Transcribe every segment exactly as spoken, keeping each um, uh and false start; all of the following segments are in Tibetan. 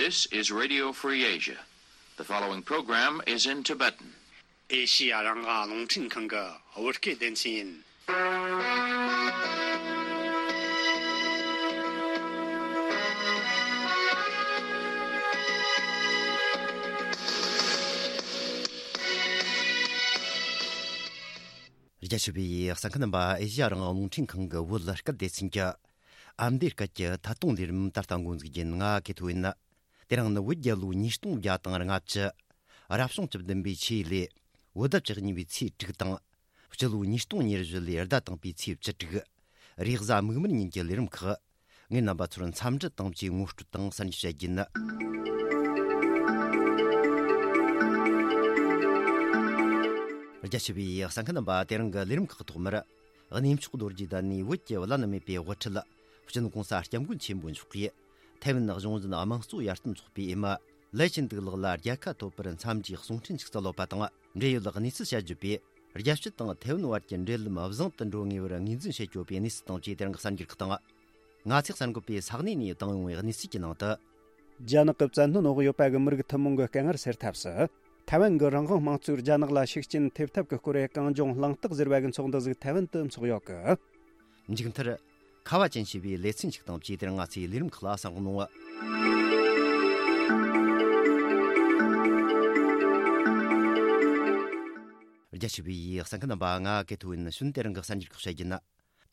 This is Radio Free Asia. The following program is in Tibetan. ཨེ་ཤི་ཡ་རང་དབང་རླུང་འཕྲིན་ཁང་གི་བོད་སྐད་སྡེ་ཚན་ཡིན། རྒྱ་ཆེ་བའི་གསན་མཁན་རྣམ་པ། ཨེ་ཤི་ཡ་རང་དབང་རླུང་འཕྲིན་ཁང་གི་བོད་སྐད་སྡེ་ཚན་གྱི་ཨ་མདོའི་སྐད་ཀྱི་ཐད་གཏོང་ལས་རིམ་ད་ལྟ་འགོ་འཛུགས་རྒྱུ་ཡིན། ང་ཀེ་ཐོ་ཡིན། དེ་རིང་ནི་བོད་རྒྱལ་ལོ་ཉིས་སྟོང་བརྒྱ་དང་ལྔ་བཅུ། རབ་བྱུང་བཅུ་བདུན་པའི་ཆུ་ཡོས་ལོའི་བོད་ཟླ་བཅུ་གཉིས་པའི་ཚེས་དྲུག་དང་། སྤྱི་ལོ་ཉིས་སྟོང་ཉེར་བཞི་ལོའི་ཟླ་དང་པོའི་ཚེས་བཅུ་དྲུག། རེས་གཟའ་མིག་དམར་ཉིན་གྱི་ལས་རིམ་ཁག་ངས་རྣམ་པ་ཚོར་འཚམས་འདྲི་དང་བཅས་ངོ་སྤྲོད་དང་གསར་འགྱུར་བཤད་རྒྱུ་ཡིན། རྒྱ་ཆེ་བའི་གསན་མཁན་རྣམ་པ། དེ་རིང་གི་ལས་རིམ་ཁག་ཐོག་མར། གནས་མཆོག་རྡོ་རྗེ་གདན་ནས་བོད་ཀྱི་བླ་ན་མེད་པའི་དབུ་ཁྲིད་སྤྱི་ནོར་༸གོང་ས་༸སྐྱབས་མགོན་ཆེན་པོ་མཆོག་གིས་ཐའེ་ཝན་གཞུང་འཛིན་དམངས་གཙོ་ཡར་ཐོན་ཚོགས་པའི་འོས་མི་ལའེ་ཆིན་ཏུའུ་ལགས་ལ་རྒྱལ་ཁ་ཐོབ་པར་འཚམས་འདྲིའི་གསུང་འཕྲིན་ཞིག་སྩལ་ཡོད་པ་དང་། འབྲེལ་ཡོད་གནས་ཚུལ་བཤད་རྒྱུ་བས། རྒྱལ་སྤྱི་དང་ཐའེ་ཝན་བར་གྱི་འབྲེལ་ལམ་བཟང་དུ་འགྲོ་ངེས་པར་ངོས་འཛིན་བྱེད་དགོས་པའི་གནས་ཚུལ་དང་བཅས་དེ་རིང་གི་གསར་འགྱུར་ཁག་དང་། ང་ཚོས་གསར་འགོད་པས་ས་གནས་ནས་བཏང་ཡོང་བའི་གནས་ཚུལ་གྱི་ནང་དུ། རྒྱ་ནག་གི་བཙན་གནོན་འོག་ཡོད་པ་གི་མི་རིགས་ཐུན་མོང་གི་དཀའ་ངལ་སེལ་ཐབས་སུ། ཐའེ་ཝན་གྱི་རང་དབང་དམངས་གཙོས་རྒྱ་ནག་ལ་ཤུགས་རྐྱེན་ཐེབས་ཐབས་ཀྱི་སྐོར་གྱི་གངས་ལྗོངས་གླེང་སྟེགས་ཟེར་བ་གི་ཚོགས་འདུ་ཟིག་ཐའེ་ཝན་དུ་འཚོགས་ཡོད་གི། མཇུག་མཐར། ཁ་བ་ཅན་ཞེས་པའི་ལེ་ཚན་ཞིག་དང་བཅས་དེ་རིང་ང་ཚོའི་ལས་རིམ་ཁག་ལ་གསན་རོགས་གནང་། རྒྱ་ཆེ་བའི་གསན་མཁན་རྣམ་པ། ང་ཀེ་ཐོ་ཡིན། གཞུག་དེ་རིང་གི་གསར་འགྱུར་ཁག་བཤད་རྒྱུ་ན།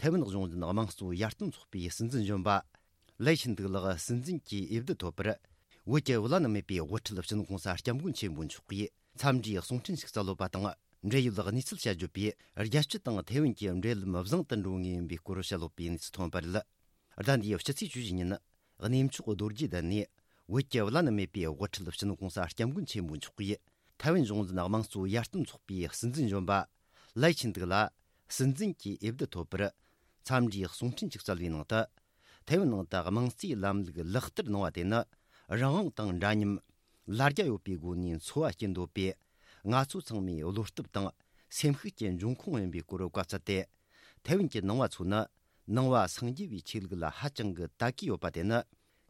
ཐའེ་ཝན་གཞུང་འཛིན་དམངས་གཙོ་ཡར་ཐོན་ཚོགས་པའི་སྲིད་འཛིན་གཞོན་པ་ལའེ་ཆིན་ཏུའུ་ལགས་སྲིད་འཛིན་གྱི་འོས་བསྡུ་ཐོབ་པར། བོད་ཀྱི་བླ་ན་མེད་པའི་དབུ་ཁྲིད་སྤྱི་ནོར་༸གོང་ས་༸སྐྱབས་མགོན་ཆེན་པོ་མཆོག་གིས་འཚམས་འདྲིའི་གསུང་འཕྲིན་ཞིག་སྩལ་ཡོད་པ་དང་། འབྲེལ་ཡོད་གནས་ཚུལ་བཤད་རྒྱུ་བས། རྒྱལ་སྤྱི་དང་ཐའེ་ཝན་གྱི་འབྲེལ་ལམ་བཟང་དུ་འགྲོ་ངེས་ཡིན་པའི་སྐོར་བཤད་ཡོད་པའི་གནས་ཚུལ་ཐོན་པ་རེད། ཟླ་འདིའི་ཕྱི་ཚེས་བཅུ་བཞི་ཉིན། གནས་མཆོག་རྡོ་རྗེ་གདན་ནས་བོད་ཀྱི་བླ་ན་མེད་པའི་དབུ་ཁྲིད་སྤྱི་ནོར་༸གོང་ས་༸སྐྱབས་མགོན་ཆེན་པོ་མཆོག་གིས་ཐའེ་ཝན་གཞུང་འཛིན་དམངས་གཙོ་ཡར་ཐོན་ཚོགས་པའི་སྲིད་འཛིན་གཞོན་པ་ལའེ་ཆིན་ཏུའུ་ལ་སྲིད་འཛིན་གྱི་འོས་བསྡུ་ཐོབ་པར་འཚམས་འདྲིའི་གསུང་འཕྲིན་ཞིག་སྩལ་བའི་ནང་དུ། ཐའེ་ཝན་ནང་དུ་དམངས་གཙོའི་ལམ་ལུགས་ལག་བསྟར་གནང་བ་དེ་ནི་རང་དབང་དང་འདྲ་མཉམ། ལ་རྒྱ་ཡོད་པའི་སྒོ་ནས་འཚོ་བ་སྐྱེལ་འདོད་པའི་ང་ཚོ་ཚང་མའི་བློ་སྟོབས་དང་སེམས་ཤུགས་ཀྱི་འབྱུང་ཁུངས་ཡིན་པའི་སྐོར་བཀའ་སྩལ་ཏེ། ཐའེ་ཝན་གྱི་ནང་བ་ཚོ་ནི་ནང་བ་སངས་རྒྱས་པའི་ཆོས་ལུགས་ལ་ཧ་ཅང་གི་དད་གུས་ཡོད་པ་དེ་ནི་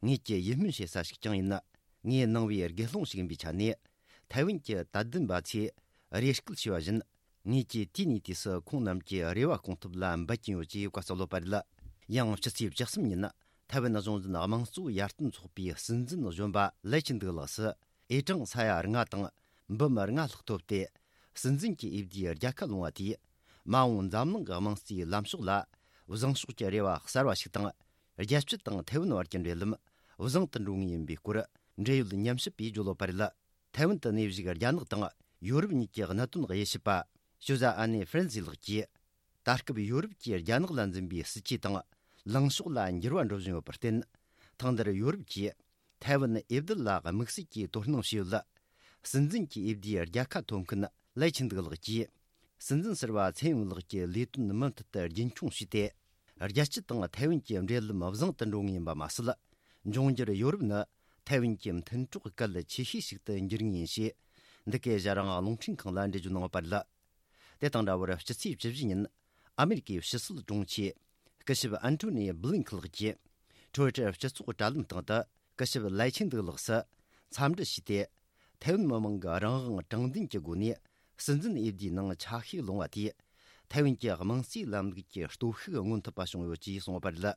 ངེད་ཀྱི་ཡིད་སྨོན་བྱེད་ས་ཞིག་ཀྱང་ཡིན། ངའི་ནང་བའི་དགེ་སློང་ཞིག་ཡིན་པའི་ཆ་ནས། ཐའེ་ཝན་གྱི་དད་ལྡན་པ་ཚོས་རེ་སྐུལ་བྱས་པ་བཞིན། ངེད་ཀྱིས་དུས་ནས་དུས་སུ་ཁོང་རྣམས་ཀྱི་རེ་བ་སྐོང་ཐབས་ལ་འབད་ཀྱིན་ཡོད་ཅེས་བཀའ་སྩལ་ཡོད་པ་རེད། ཡང་ཕྱི་ཚེས་བཅུ་གསུམ་ཉིན། ཐའེ་ཝན་གཞུང་འཛིན་དམངས་གཙོ་ཡར་ཐོན་ཚོགས་པའི་སྲིད་འཛིན་གཞོན་པ་ལའེ་ཆིན་ཏུའུ་ལགས་སུ། ཨེ་ཀྲང་ས་ཡ་ལྔ་དང་འབུམ་ལྔ་ལྷག་ཐོབ་སྟེ། སྲིད་འཛིན་གྱི་འོས་བསྡུའི་རྒྱལ་ཁ་བླངས་པ་དེས། མ་འོངས་འཛམ་གླིང་གི་དམངས་གཙོའི་ལམ་ཕྱོགས་ལ། བཟང་ཕྱོགས་ཀྱི་རེ་བ་གསར་བ་ཞིག་དང་། རྒྱལ་སྤྱི་དང་ཐའེ་ཝན་བར་གྱི་འབྲེལ་ལམ་བཟང་དུ་འགྲོ་ངེས་ཡིན་པའི་སྐོར། འབྲེལ་ཡོད་ཉམས་ཞིབ་པས་བརྗོད་ཡོད་པ་རེད། ཐའེ་ཝན་དུ་གནས་བཞུགས་རྒྱ་ནག་དང་ཡོ་རོབ་གཉིས་ཀྱི་གནད་དོན་དབྱེ་ཞིབ་པ། ཞུ་ཟ་ཨ་ནེ་ཧྥ་རན་སི་ལགས་ཀྱིས། ད་སྐབས་ཡོ་རོབ་ཀྱིས་རྒྱ་ནག་ལ་འཛིན་པའི་སྲིད་ཇུས་དང་། ལངས་ཕྱོགས་ལ་འགྱུར་བ་འགྲོ་བཞིན་ཡོད་པར་བརྟེན། ཐེངས་འདིར་ཡོ་རོབ་ཀྱིས་ཐའེ་ཝན་འོས་བསྡུ་ལ་དམིགས་བསལ་གྱིས་དོ་སྣང་བྱས་ཡོད་ལ། སྲིད་འཛིན་གྱི་འོས་བསྡུའི་རྒྱལ་ཁ་ཐོབ་མཁན་ལའེ་ཆིན་ཏུའུ་ལགས་ཀྱིས། སྲིད་འཛིན་ཟུར་པ་ཚེ་ཡུང་ལགས་ཀྱི་ལས་དོན་མུ་མཐུད་དུ་རྒྱུན་འཁྱོངས་བྱས་ཏེ། རྒྱལ་སྤྱི་དང་ཐའེ་ཝན་གྱི་འབྲེལ་ལམ་བཟང་དུ་འགྲོ་ངེས་ཡིན་པ་མ་ཟད། འབྱུང་འགྱུར་ཡོ་རོབ་ནི་ཐའེ་ཝན་གྱི་མཐུན་གྲོགས་གལ་ཆེ་ཤོས་ཤིག་ཏུ་འགྱུར་ངེས་ཡིན་ཞེས། འདི་གའི་ཨེ་ཤ་ཡ་རང་དབང་རླུང་འཕྲིན་ཁང་ལ་འགྲེལ་བརྗོད་གནང་ཡོད་པ་རེད། དེ་དང་འདྲ་བར་ཕྱི་ཚེས་བཅུ་བཞི་ཉིན། ཨ་མེ་རི་ཀའི་ཕྱི་སྲིད་དྲུང་ཆེ། སྐུ་ཞབས་ཨན་ཐོ་ནི་བྷི་ལིན་ཁི་ལགས་ཀྱིས། ཊུ་ཝི་ཊར་སྤྱི་ཚོགས་དྲ་ལམ་སྟེང་དུ། སྐུ་ཞབས་ལའེ་ཆིན་ཏུའུ་ལགས་སུ། འཚམས་འདྲི་ཞུས་ཏེ། ཐའེ་ཝན་མི་མང་གི་རང་དབང་དྲང་བདེན་གྱི་སྒོ་ནས། སྲིད་འཛིན་འོས་བསྡུའི་ནང་ཆ་ཤས་ལོངས་པ་དེས། ཐའེ་ཝན་གྱི་དམངས་གཙོའི་ལམ་ལུགས་ཀྱི་སྟོབས་ཤུགས་མངོན་ཐུབ་པ་བྱུང་ཡོད་ཅེས་གསུངས་ཡོད་པ་རེད།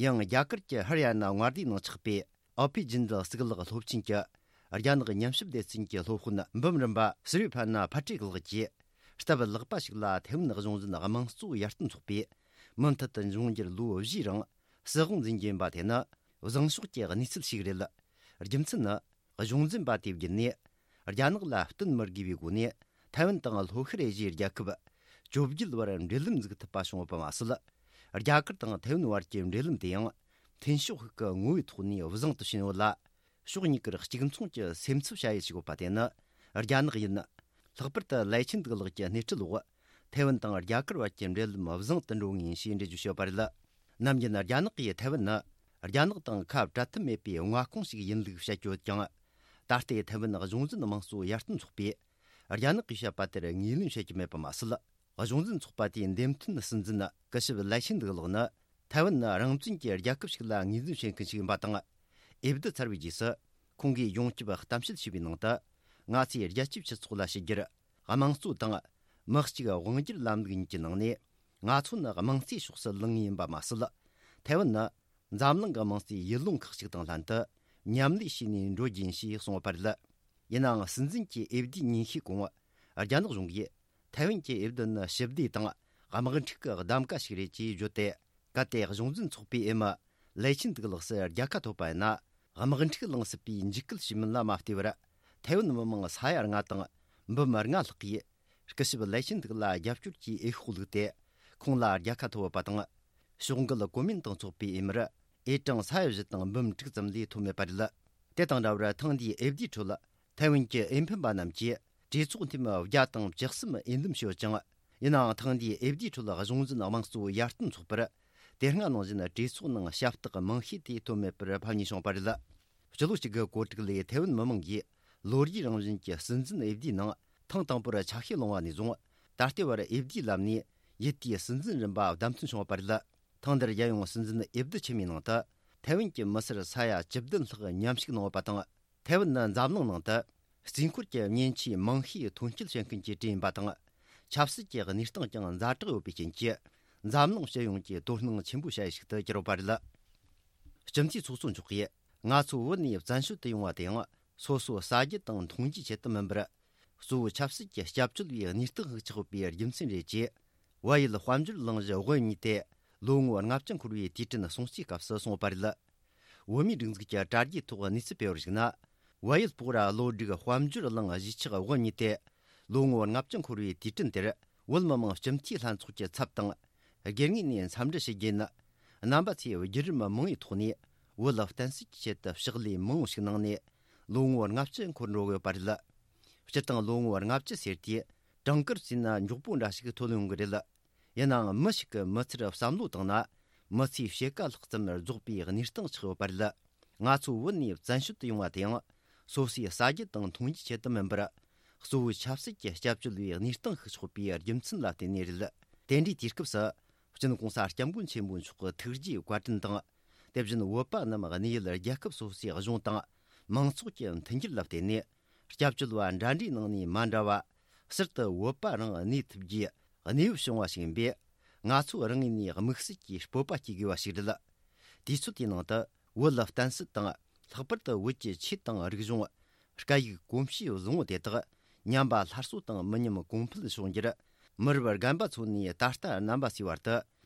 ཡང་རྒྱ་གར་གྱི་ཧ་རི་ཡ་ན་མངའ་སྡེའི་ནང་ཆགས་པའི། ཨོ་པི་ཇིན་དལ་གཙུག་ལག་སློབ་ཆེན་གྱི་རྒྱ་ནག་ཉམས་ཞིབ་སྡེ་ཚན་གྱི་སློབ་དཔོན་འབུམ་རམས་པ་སུ་རི་ཕ་ན་ཕ་ཏྲིག་ལགས་ཀྱིས། སྟབས་ལེགས་པ་ཞིག་ལ་ཐའེ་ཝན་གཞུང་འཛིན་དམངས་གཙོ་ཡར་ཐོན་ཚོགས་པས་མུ་མཐུད་དུ་འབྱུང་འགྱུར་ལོ་བཞིའི་རིང་སྲིད་དབང་འཛིན་རྒྱུ་ཡིན་པ་དེ་ནི་བཟང་ཕྱོགས་ཀྱི་གནས་ཚུལ་ཞིག་རེད། རྒྱུ་མཚན་ནི། གཞུང་འཛིན་པ་དེ་བརྒྱུད་ནས་རྒྱ་ནག་ལ་བསྟུན་མི་དགོས་པའི་སྒོ་ནས་ཐའེ་ཝན་དང་ལྷོ་ཤར་ཨེ་ཤི་ཡའི་རྒྱལ་ཁབ་བཅོ་བརྒྱད་བར་འབྲེལ་ལམ་འཛུགས་ཐུབ་པ་བྱུང་ཡོད་པ་མ་ཟད། རྒྱ་གར་དང་ཐའེ་ཝན་བར་གྱི་འབྲེལ་ལམ་དེ་ཡང་མཐུན་ཕྱོགས་ཤིག་གི་ངོ་བོའི་ཐོག་ནས་བཟང་དུ་ཕྱིན་ཡོད་ལ། ཕྱོགས་གཉིས་ཀར་གཅིག་མཚུངས་ཀྱི་སེམས་འཚབ་བྱ་ཡུལ་ཞིག་ཡོད་པ་དེ་ནི་རྒྱ་ནག་ཡིན། ལྷག་པར་དུ་ལའེ་ཆིན་ཏུའུ་ལགས་ཀྱི་སྣེ་ཁྲིད་འོག་ཐའེ་ཝན་དང་རྒྱ་གར་བར་གྱི་འབྲེལ་ལམ་བཟང་དུ་འགྲོ་ངེས་ཡིན་ཞེས་འགྲེལ་བརྗོད་བྱས་ཡོད་པ་རེད། ནམ་རྒྱུན་རྒྱ་ནག་གིས་ཐའེ་ཝན་ནི་རྒྱ་ནག་དང་ཁ་བྲལ་ཐབས་མེད་པའི་མངའ་ཁོངས་ཤིག་ཡིན་ལུགས་བཤད་ཀྱི་ཡོད་ཀྱང་། ད་ལྟའི་ཐའེ་ཝན་གཞུང་འཛིན་དམངས་གཙོ་ཡར་ཐོན་ཚོགས་པས་རྒྱ་ནག་གིས་བཤད་པ་དེར་ངོས་ལེན་བྱེད་ཀྱི་མེད་པ་མ་ཟད། གཞུང་འཛིན་ཚོགས་པ་དེའི་འདེམས་ཐོན་སྲིད་འཛིན་སྐུ་ཞབས་ལའེ་ཆིན་ཏུའུ་ལགས་ནི། ཐའེ་ཝན་ནི་རང་བཙན་གྱི་རྒྱལ་ཁབ་ཞིག་ལ་ངོས་འཛིན་བྱེད་མཁན་ཞིག་ཡིན་པ་དང་། འོས་བསྡུ་ཚར་བའི་རྗེས་སུ། ཁོང་གིས་ཡོངས་ཁྱབ་གཏམ་བཤད་བྱས་པའི་ནང་དུ། ང་ཚོས་རྒྱལ་སྤྱིའི་སྤྱི་ཚོགས་ལ་ཕྱི་རྒྱལ་དམངས་གཙོ་དང་། མི་གཅིག་དབང་སྒྱུར་ལམ་ལུགས་གཉིས་ཀྱི་ནང་ནས། ང་ཚོ་ནི་དམངས་གཙོའི་ཕྱོགས་སུ་ལངས་ངེས་ཡིན་པ་མ་ཟད། ཐའེ་ཝན་ནི་འཛམ་གླིང་གི་དམངས་གཙོའི་ཡུལ་ལུང་ཁག་ཅིག་དང་ལྷན་དུ་མཉམ་ལས་བྱས་ནས་འགྲོ་རྒྱུ་ཡིན་ཞེས་གསུངས་པ་རེད། ཡིན་ནའང་། སྲིད་འཛིན་གྱི་འོས་བསྡུའི་ཉིན་ཤས་གོང་། རྒྱ་ནག་གཞུང་གིས་ཐའེ་ཝན་གྱི་འོས་བསྡུ་ནི་ཞི་བདེ་དང་དམག་འཁྲུག་གི་གདམ་ག་ཞིག་རེད་ཅེས་བརྗོད་དེ། གལ་ཏེ་གཞུང་འཛིན་ཚོགས་པའི་འོས་མི་ལའེ་ཆིན་ཏུའུ་ལགས་སུ་རྒྱལ་ཁ་ཐོབ་པ་ཡིན་ན། དམག་འཁྲུག་ལངས་སྲིད་པའི་འཇིགས་སྐུལ་བྱེད་མིན་ལ་མ་ལྟོས་པར། ཐའེ་ཝན་མི་མང་ས་ཡ་ལྔ་དང་འབུམ་ལྔ་ལྷག་གིས་སྐུ་ཞབས་ལའེ་ཆིན་ཏུའུ་ལ་རྒྱབ་སྐྱོར་གྱི་འོས་ཤོག་བླུགས་ཏེ། ཁོང་ལ་རྒྱལ་ཁ་ཐོབ་པ་དང་། ཕྱོགས་འགལ་གོ་མིན་ཏང་ཚོགས་པའི་འོས་མིར་འོས་གྲངས་ས་ཡ་བཞི་དང་འབུམ་དྲུག་ཙམ་ལས་ཐོབ་མེད་པ་རེད། དེ་དང་འདྲ་བར། ཐེངས་འདིའི་འོས་བསྡུའི་ཁྲོད། ཐའེ་ཝན་གྱི་འོས་འཕེན་པ་རྣམས་ཀྱིས་གྲོས་ཚོགས་འཐུས་མི་བརྒྱ་དང་བཅུ་གསུམ་འོས་འདེམས་བྱས་ཡོད་ཅིང་། ཡིན་ནའང་། ཐེངས་འདིའི་འོས་བསྡུའི་ཁྲོད་གཞུང་འཛིན་དམངས་གཙོ་ཡར་ཐོན་ཚོགས་པར་དེ་སྔ་ནང་བཞིན་གྲོས་ཚོགས་ནང་ཞབས་སྟེགས་མང་ཤོས་དེ་ཐོབ་མེད་པར་ཕམ་ཉེས་བྱུང་བ་རེད། སྤྱི་ལོ་གཅིག་གི་གོ་སྒྲིག་ལས། ཐའེ་ཝན་མི་མང་གིས་ལོ་རྒྱུས་རང་བཞིན་གྱི་སྲིད་འཛིན་འོས་བསྡུའི་ནང་ཐེངས་དང་པོར་ཆ་ཤས་བླངས་པ་ནས་བཟུང་། ད་ལྟའི་བར་འོས་བསྡུའི་ལམ་ནས་ཡུལ་དེའི་སྲིད་འཛིན་རིམ་པ་བདམས་ཐོན་བྱུང་བ་རེད། ཐེངས་འདིར་རྒྱལ་ཡོངས་སྲིད་འཛིན་འོས་བསྡུ་ཆེན་མོའི་ནང་དུ། ཐའེ་ཝན་གྱི་མི་སེར་ས་ཡ་བཅུ་བདུན་ལྷག་མཉམ་ཞུགས་གནང་ཡོད་པ་དང་། ཐའེ་ཝན་ནི་འཛམ་གླིང་ནང་དུ་རྩིས་འཁོར་གྱི་མཉེན་ཆས་མང་ཤོས་ཐོན་སྐྱེད་བྱེད་མཁན་གྱི་གྲས་ཡིན་པ་དང་། ཆབ་སྲིད་ཀྱི་གནས་སྟངས་ཀྱང་ཛ་དྲག་ཡོད་པའི་རྐྱེན་གྱིས། འཛམ་གླིང་སྤྱི་ཡོངས་ཀྱི་དོ་སྣང་ཆེན་པོ་བྱ་ཡུལ་ཞིག་ཏུ་གྱུར་ཡོད་པ་རེད། སྤྱི་འཐུས་ཚོགས་གཙོ་མཆོག་གིས། ང་ཚོ་བོད་ནས་བཙན་བྱོལ་དུ་ཡོང་བ་དེ་ཡང་། སོ་སོ་ཟ་རྒྱུ་དང་འཐུང་རྒྱུའི་ཆེད་དུ་མིན་པར། གཙོ་བོ་ཆབ་སྲིད་ཀྱི་སྐྱབས་བཅོལ་བའི་གནས་སྟངས་ཤིག་ཆགས་ཡོད་པའི་རྒྱུ་མཚན་རེད་ཅེས། བལ་ཡུལ་དཔལ་འབྱོར་གླེང་གཞི་དབུ་བརྙེས་ཏེ་ལོ་ངོ་ལྔ་བཅུ་འཁོར་བའི་དུས་དྲན་སྲུང་བརྩིའི་སྐབས་སུ་གསུངས་པ་རེད། བོད་མིའི་སྒྲིག་འཛུགས་ཀྱི་དྲ་རྒྱའི་ཐོག་གནས་ཚུལ་སྤེལ་བར་གཞིགས་ན། བལ་ཡུལ་སྤོག་ར་བློ་སྒྲིག་དཔལ་འབྱོར་གླེང་གཞིས་ཆགས་དབུ་བརྙེས་ཏེ་ལོ་ངོ་ལྔ་བཅུ་འཁོར་བའི་དུས་དྲན་དེར། བོད་མི་མང་སྤྱི་འཐུས་ལྷན་ཚོགས་ཀྱི་ཚབ་དང་། སྒེར་ངོས་ནས་འཚམས་འདྲི་ཞུ་རྒྱུ་ནི། རྣམ་པ་ཚོས་བརྒྱུད་རིམ་མང་བོའི་ཐོག་ནས་བོད་ལ་བརྟེན་སྲིད་ཀྱི་ཆེད་དུ་ཕྱག་ལས་མང་བོ་ཞིག་གནང་ནས་ལོ་ངོ་ལྔ་བཅུ་འཁོར་འགྲོ་གི་ཡོད་པ་རེད། སྤྱིར་བཏང་ལོ་ངོ་ལྔ་བཅུ་ཟེར་དུས་གྲངས་ཀར་བརྩིས་ན་མགྱོགས་པོ་འདྲ་ཞིག་ཐོན་ཡོང་གི་རེད། ཡིན་ནའང་། མི་ཞིག་གི་མི་ཚེར་བསམ་བློ་བཏང་ན། མི་ཚེའི་ཕྱེད་ཀ་ལྷག་ཙམ་རྫོགས་པའི་གནས་སྟངས་ཆགས་ཡོད་པ་རེད། ང་ཚོ་བོད་ནས་བཙན་བྱོལ་དུ་ཡོང་བ་དེ་ཡང་། སོ་སོའི་ཟ་རྒྱུ་དང་འཐུང་རྒྱུའི་ཆེད་དུ་མིན་པར། གཙོ་བོའི་ཆབ་སྲིད་ཀྱི་སྐྱབས་བཅོལ་བའི་གནས་སྟངས་ཤིག་ཆགས་པའི་རྒྱུ་མཚན་ལ་བརྟེན་ནས་རེད། དེ་འདྲའི་དུས་སྐབས་སུ། སྤྱི་ནོར་གོང་ས་སྐྱབས་མགོན་ཆེན་པོ་མཆོག་གི་ཐུགས་རྗེའི་བཀའ་དྲིན་དང་། དེ་བཞིན་བོད་པ་རྣམས་གནས་ཡུལ་རྒྱལ་ཁབ་སོ་སོའི་གཞུང་དང་མང་ཚོགས་ཀྱི་མཐུན་འགྱུར་ལ་བརྟེན་ནས། སྐྱབས་བཅོལ་བ་འདྲ་འདྲའི་ནང་ནས་མ་འདྲ་བ། ཟུར་དུ་བོད་པ་རང་གནས་ཐུབ་རྒྱུའི་གནས་བབ་བྱུང་བ་ཞིག་ཡིན་པས། ང་ཚོ་རང་ངོས་ནས་དམིགས་བསལ་གྱི་སྤོབས་པ་སྐྱེ་དགོས་པ་ཞིག་རེད། དུས་ཚོད་དེའི་ནང་དུ་བོད་ལ་བརྟེན་སྲིད་དང་། ལྷག་པར་དུ་བོད་ཀྱི་ཆོས་དང་རིག་གཞུང་། སྐད་ཡིག་གོམས་གཤིས་བཟང་བོ་དེ་དག་ཉམས་པ་སླར་གསོ་དང་མི་ཉམས་གོང་འཕེལ་འབྱུང་རྒྱུར། མི་རབས་རྒན་པ་ཚོ་ནས་ད་ལྟ་རྣམ་པ་ཚོའི་བར་དུ་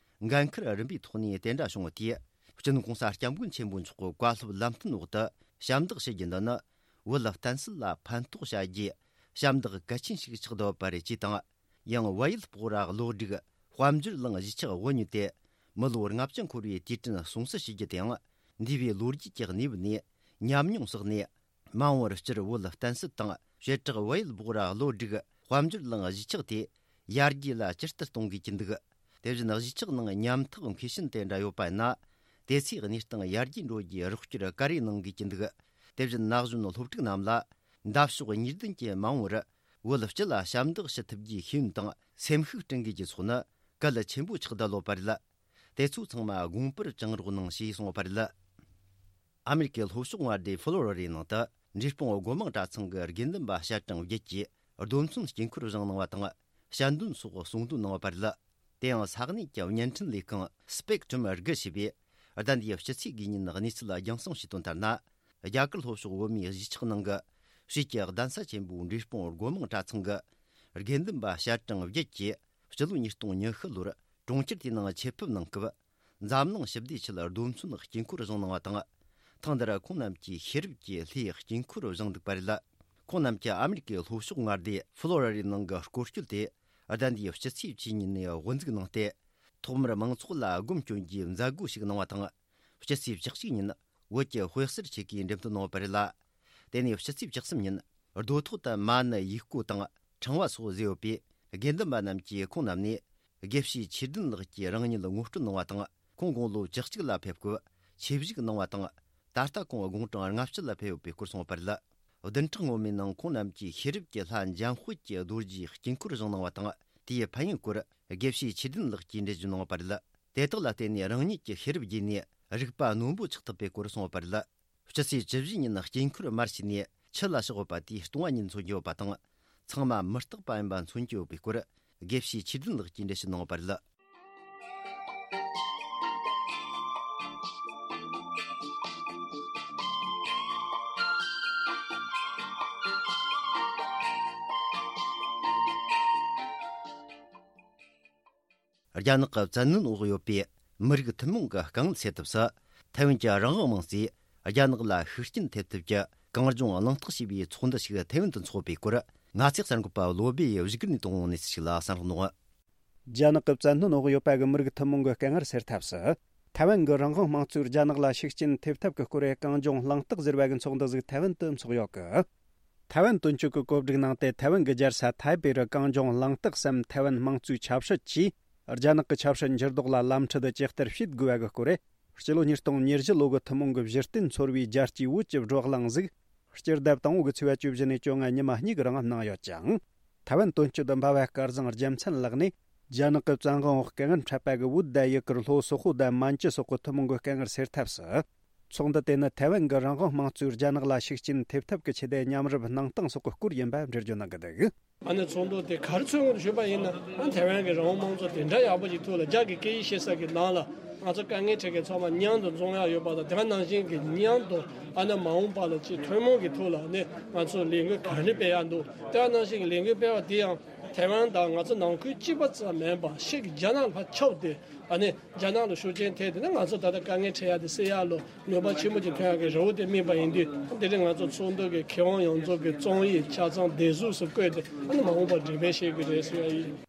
འགན་འཁུར་རིམ་པའི་ཐོག་ནས་དེ་འདྲ་བྱུང་བ་དེས། སྤྱི་ནོར་གོང་ས་སྐྱབས་མགོན་ཆེན་པོ་མཆོག་གི་བཀའ་སློབ་ལམ་སྟོན་འོག་ཏུ་ཞབས་འདེགས་ཞུ་རྒྱུ་འདི་ནི། བོད་ལ་བརྟེན་སྲིད་ལ་ཕན་ཐོགས་བྱ་རྒྱུའི་ཞབས་འདེགས་གལ་ཆེན་ཞིག་ཆགས་བསྡད་ཡོད་པ་རེད་ཅེས་དང་། ཡང་། བལ་ཡུལ་སྤོག་ར་བློ་སྒྲིག་དཔལ་འབྱོར་གླིང་གཞིས་ཆགས་དབུ་བརྙེས་ཏེ་མི་ལོ་ལྔ་བཅུ་འཁོར་བའི་དུས་དྲན་སྲུང་བརྩི་ཞུ་རྒྱུ་དེའང་། འདས་པའི་ལོ་རྒྱུས་ཀྱི་གནས་བབ་ནས་ཉམས་མྱོང་བསགས་ནས། མ་འོངས་པར་སྤྱིར་བོད་ལ་བརྟེན་སྲིད་དང་། བྱེ་བྲག་བལ་ཡུལ་སྤོག་ར་བློ་སྒྲིག་དཔལ་འབྱོར་གླིང་གཞིས་ཆགས་དེ་ཡར་རྒྱས་ལ་ཇི་ལྟར་གཏོང་དགོས་ཀྱི་འདུག། དེ་བཞིན་གཞིས་ཆགས་ནང་ཉམ་ཐག་མཁས་ཤིང་དེ་འདྲ་ཡོད་པ་ཡིན་ན། དེ་ཚོའི་གནས་སྟངས་ཡར་རྒྱས་འགྲོ་རྒྱུའི་རོགས་སྐྱོར་ག་རེ་གནང་དགོས་ཀྱི་འདུག། དེ་བཞིན་ན་གཞོན་སློབ་ཕྲུག་རྣམས་ལ་འདབ་ཕྱོགས་གཉིས་ལྡན་གྱི་མ་འོངས་པར་བོད་སྤྱི་ལ་ཞབས་འདེགས་ཞུ་ཐུབ་རྒྱུའི་ཤེས་ཡོན་དང་སེམས་ཤུགས་སྐྲུན་དགོས་ཀྱི་ཚོགས་ནི་གལ་ཆེན་པོ་ཆགས་བསྡད་ཡོད་པ་རེད། དེ་ཚོ་ཚང་མ་དགོངས་པར་བཅངས་རོགས་གནང་ཞེས་གསུངས་པ་རེད། ཨ་མེ་རི་ཀའི་ལྷོ་ཕྱོགས་མངའ་སྡེ་ཕློ་རི་ཌའི་ནང་དུ་འབྲས་སྤུངས་སྒོ་མང་གྲྭ་ཚང་གི་དགེ་འདུན་པ་ཞལ་གྲངས་བརྒྱད་ཀྱིས་རྡོ་མཚོན་དཀྱིལ་འཁོར་བཞེངས་གནང་བ་དང་། ཞལ་འདོན་སོགས་གསུང་འདོན་གནང་བ་རེད། དེ་ཡང་ས་གནས་ཀྱི་བརྙན་འཕྲིན་ལས་ཁང་Spectrum་དགུ་ཞེས་པས་ཟླ་འདིའི་སྤྱི་ཚེས་དགུའི་ཉིན་གནས་ཚུལ་རྒྱང་སྲིང་ཞུས་དོན་ལྟར་ན། རྒྱ་གར་ལྷོ་ཕྱོགས་བོད་མིའི་གཞིས་ཆགས་ནང་གི་ཆོས་ཀྱི་གདན་ས་ཆེན་པོ་འབྲས་སྤུངས་སྒོ་མང་གྲྭ་ཚང་གི་དགེ་འདུན་པ་ཞལ་གྲངས་བརྒྱད་ཀྱིས་སྤྱི་ལོ་ཉིས་སྟོང་ཉི་ཤུ་ལོར་གྲོང་ཁྱེར་དེའི་ནང་ཆེད་ཕེབས་གནང་སྐབས། འཛམ་གླིང་ཞི་བདེའི་ཆེད་རྡོ་མཚོན་དཀྱིལ་འཁོར་བཞེངས་གནང་བ་དང་། ཐེངས་འདིར་ཁོང་རྣམས་ཀྱིས་ཤེས་རབ་ཀྱི་ལྷའི་དཀྱིལ་འཁོར་བཞེངས་འདུག་པ་རེད། ཁོང་རྣམས་ཀྱིས་ཨ་མེ་རི་ཀའི་ལྷོ་ཕྱོགས་མངའ་སྡེ་ཕློ་རི་ཌའི་ནང་གི་སྐོར་སྐྱོད་དེ་ཟླ་འདིའི་སྤྱི་ཚེས་བཅུ་གཉིས་ནས་དབུ་འཛུགས་གནང་སྟེ། ཐོག་མར་མང་ཚོགས་ལ་སྒོམ་སྐྱོན་གྱི་མཛད་སྒོ་ཞིག་གནང་བ་དང་། སྤྱི་ཚེས་བཅུ་གཅིག་ཉིན་བོད་ཀྱི་དཔེ་གསར་ཆེ་གའི་འགྲེམས་སྟོན་གནང་བ་རེད་ལ། དེ་ནས་སྤྱི་ཚེས་བཅུ་གསུམ་ཉིན་རྡོ་ཐོག་ཏུ་མ་ཎི་ཡིག་བརྐོས་དང་ཕྲེང་བ་སོགས་བཟོས་ཡོད་པས། དགེ་འདུན་པ་རྣམས་ཀྱིས་ཁོང་རྣམས་ནས་དགེ་བཤེས་ཆོས་ལྡན་ལགས་ཀྱིས་རང་ཉིད་ངོ་སྤྲོད་གནང་བ་དང་། ཁོང་དགུང་ལོ་བཅུ་གཅིག་ལ་ཕེབས་སྐབས་ཆིབས་བཞུགས་གནང་བ་དང་། ད་ལྟ་ཁོང་དགུང་གྲངས་ལྔ་བཅུ་ལ་ཕེབས་ཡོད་པའི་སྐོར་གསུངས་པ་རེད། བདུན་ཕྲག་སྔོན་མའི་ནང་ཁོང་རྣམས་ཀྱིས་ཤེས་རབ་ཀྱི་ལྷ་འཇམ་དཔལ་གྱི་རྡོ་རྗེའི་དཀྱིལ་འཁོར་བཞེངས་གནང་བ་དང་། དེའི་ཕན་ཡོན་སྐོར་དགེ་བཤེས་ཆོས་ལྡན་ལགས་ཀྱིས་འགྲེལ་བརྗོད་གནང་བ་རེད། དེ་དག་ལ་བརྟེན་ནས་རང་ཉིད་ཀྱི་ཤེས་རབ་རྒྱས་ནས་རིག་པ་རྣོན་པོ་ཆགས་ཐུབ་པའི་སྐོར་གསུངས་པ་རེད། སྤྱི་ཚེས་བཅུ་བཞི་ཉིན་དཀྱིལ་འཁོར་དམར་ཕྱེས་ནས་ཆུ་ལ་ཕྱག་ཡོད་པ་དེ་སྟོང་བ་ཉིད་མཚོན་གྱི་ཡོད་པ་དང་། ཚང་མ་མི་རྟག་པ་ཡིན་པ་མཚོན་གྱི་ཡོད་པའི་སྐོར། དགེ་བཤེས་ཆོས་ལྡན་ལགས་ཀྱིས་འགྲེལ་བཤད་གནང་ཡོད་པ་རེད། རྒྱ་ནག་གི་བཙན་གནོན་འོག་ཡོད་པའི་མི་རིགས་ཐུན་མོང་གི་དཀའ་ངལ་སེལ་ཐབས་སུ། ཐའེ་ཝན་གྱི་རང་དབང་དམངས་གཙོས་རྒྱ་ནག་ལ་ཤུགས་རྐྱེན་ཐེབས་ཐབས་ཀྱི་གངས་ལྗོངས་གླེང་སྟེགས་ཞེས་པའི་ཚོགས་འདུ་ཞིག་ཐའེ་ཝན་དུ་འཚོགས་པའི་སྐོར། ང་ཚོའི་གསར་འགོད་པ་བློ་སྦེ་ཡིས་བཞུགས་སྒར་ནས་བཏང་བའི་གནས་ཚུལ་ཞིག་ལ་གསན་རོགས་གནང་། རྒྱ་ནག་གི་བཙན་གནོན་འོག་ཡོད་པ་གི་མི་རིགས་ཐུན་མོང་གི་དཀའ་ངལ་སེལ་ཐབས་སུ། ཐའེ་ཝན་གྱི་རང་དབང་དམངས་གཙོས་རྒྱ་ནག་ལ་ཤུགས་རྐྱེན་ཐེབས་ཐབས་ཀྱི་སྐོར་གངས་ལྗོངས་གླེང་སྟེགས་ཟེར་བ་གི་ཚོགས་འདུ་ཟིག་ཐའེ་ཝན་དུ་འཚོགས་ཡོད་གི། ཐའེ་ཝན་དོན་གཅོད་ཀྱི་བཀོད་སྒྲིག་ནང་དེ་ཐའེ་ཝན་གྱི་རྒྱལ་ས་ཐའེ་པེ་རུ་གངས་ལྗོངས་གླེང་སྟེགས་སམ་ཐའེ་ཝན་དམངས་གཙོའི་ཆབ་སྲིད་ཀྱིས་རྒྱ་ནག་གི་ཆབ་སྲིད་འགྱུར་ལྡོག་ལ་ལམ་ཁྲིད་ཇི་ལྟར་བྱེད་དགོས་པ་གི་སྐོར། སྤྱི་ལོ་ཉིས་སྟོང་ཉེར་བཞི་ལོ་གི་ཐུན་མོང་གི་གཞི་རྟེན་ཚོར་བའི་རྒྱལ་སྤྱིའི་བོད་ཀྱི་བགྲོ་གླེང་ཟིག་སྤྱི་ཟླ་དང་པོ་གི་ཚེས་པ་བཅུ་བཞི་ནས་བཅོ་ལྔ་ཉི་མ་གཉིས་ཀྱི་རིང་གནང་ཡོད་ཅིང་། ཐའེ་ཝན་དོན་གཅོད་འབའ་བ་སྐལ་བཟང་རྒྱལ་མཚན་ལགས་ནས་རྒྱ་ནག་གི་བཙན་དབང་འོག་དཀའ་ངལ་འཕྲད་པ་གི་བོད་དང་ཡུ་གུར་ལྷོ་སོག་པོ་དང་མན་ཇུ་སོགས་ཀྱི་ཐུན་མོང་གི་དཀའ་ངལ་སེལ་ཐབས་སུ། ཚོགས་འདུ་དེ་ནི་ཐའེ་ཝན་གྱི་རང་དབང་དམངས་གཙོས་རྒྱ་ནག་ལ་ཤུགས་རྐྱེན་ཐེབས་ཐབས་ཀྱི་ཆེད་དུ་མཉམ་རུབ་གནང་སྟངས་སོགས་ཀྱི་སྐོར་ཡིན་པ་འགྲེལ་བརྗོད་གནང་གི་འདུག་ཨ་ནི་ཚོགས་འདུ་དེ་ག་རེ་མཚོན་དགོས་ཞུས་པ་ཡིན་ན། ཨ་ཐའེ་ཝན་གྱི་རང་དབང་དམངས་གཙོ་དེ་འདྲ་ཡག་པོ་ཞིག་ཐོག་ལ་རྒྱ་གི་སྐད་ཡིག་ཤེས་ས་གི་ནང་ལ་ང་ཚོ་དཀའ་ངལ་འཕྲད་མཁན་ཚང་མ་མཉམ་དུ་འཛོམས་ཡག་ཡོད་པ་དང་། དེ་ནང་བཞིན་གྱི་མཉམ་དུ་ཨ་ནི་མ་འོངས་པ་ལ་ཅིག་ཐུན་མོང་གི་ཐོག་ལ་ནི་ང་ཚོ་ལས་འགུལ་ག་རེ་སྤེལ་ཡག་འདུག་དེ་ནང་བཞིན་གྱི་ལས་འགུལ་སྤེལ་བ་དེ་ཡང་ཐའེ་ཝན་དང་ང་ཚོ་ནང་ཁུལ་གཅིག་པ་ཙམ་མིན་པ་ཕྱི་གི་རྒྱ་ནག་ལ་ཁྱབ་སྟེ། ཨ་ནི་རྒྱ་ནག་ལ་ཤུགས་རྐྱེན་ཐེབས་ཏེ་ནི་ང་ཚོ་ད་ལྟ་དཀའ་ངལ་འཕྲད་ཡག་དེ་སེལ་ཡག་ལ་ནུས་པ་ཆེན་པོ་ཅིག་ཐོན་ཡག་གི་རེ་བ་དེ་སྨིན་པ་ཡིན་དུས། དེ་རིང་ང་ཚོ་ཚོགས་འདུ་གི་མཁས་དབང་ཡོངས་རྫོགས་ཀྱི་རྩོམ་ཡིག་ཆ་ཚང་བདེ་སྡུག་སུ་བཀོད་དེ་ཨ་ནི་མ་འོངས་པར་འགྲེམས་སྤེལ་བྱེད་དགོས་རེད་ཟེར་ཡ་ཡིན།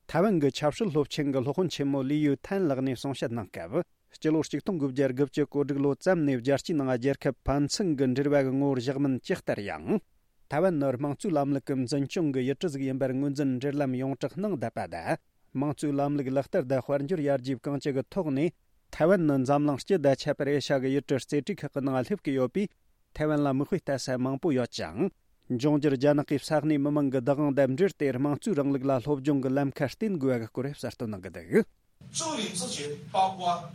ཐའེ་ཝན་གྱི་ཆབ་སྲིད་སློབ་ཆེན་གྱི་སློབ་དཔོན་ཆེན་མོ་ལི་ཡུའུ་ཐན་ལགས་ནས་གསུང་བཤད་གནང་སྐབས། སྤྱི་ལོ་གཅིག་སྟོང་དགུ་བརྒྱ་དགུ་བཅུ་གོ་དྲུག་ལོ་ཙམ་ནས་རྒྱལ་སྤྱིའི་ནང་རྒྱལ་ཁབ་ཕན་ཚུན་གྱི་འབྲེལ་བ་གི་ངོ་བོར་བཞག་མིན་ཇི་ལྟར་ཡང་། ཐའེ་ཝན་ནི་དམངས་གཙོའི་ལམ་ལུགས་ཀྱི་འཛིན་སྐྱོང་གི་ཡུལ་གྲུ་ཟིག་ཡིན་པར་ངོས་འཛིན་འབྲེལ་ལམ་ཡོངས་གྲགས་གནང་བསྡད་པ་དང་། དམངས་གཙོའི་ལམ་ལུགས་ལག་བསྟར་དང་དཔལ་འབྱོར་ཡར་རྒྱས་གང་ཅི་གི་ཐོག་ནས། ཐའེ་ཝན་ནི་འཛམ་གླིང་སྤྱི་དང་ཁྱད་པར་ཨེ་ཤ་གི་ཡུལ་གྲུ་རྩེ་གྲས་ཁག་གི་ནང་སླེབས་ཀྱི་ཡོད་པས། ཐའེ་ཝན་ལ་མིག་དཔེ་ལྟ་ས་མང་པོ་ཡོད་ཅིང་། འབྱུང་འགྱུར་རྒྱ་ནག་གི་ས་གནས་མི་མང་གི་བདག་དབང་དང་འབྲེལ་ཏེ། དམངས་གཙོའི་རིང་ལུགས་ལ་སློབ་སྦྱོང་གི་ལམ་ཁ་བརྟེན་དགོས་པ་གི་སྐོར་གསལ་སྟོན་གནང་གི་འདུག 自由民主权包括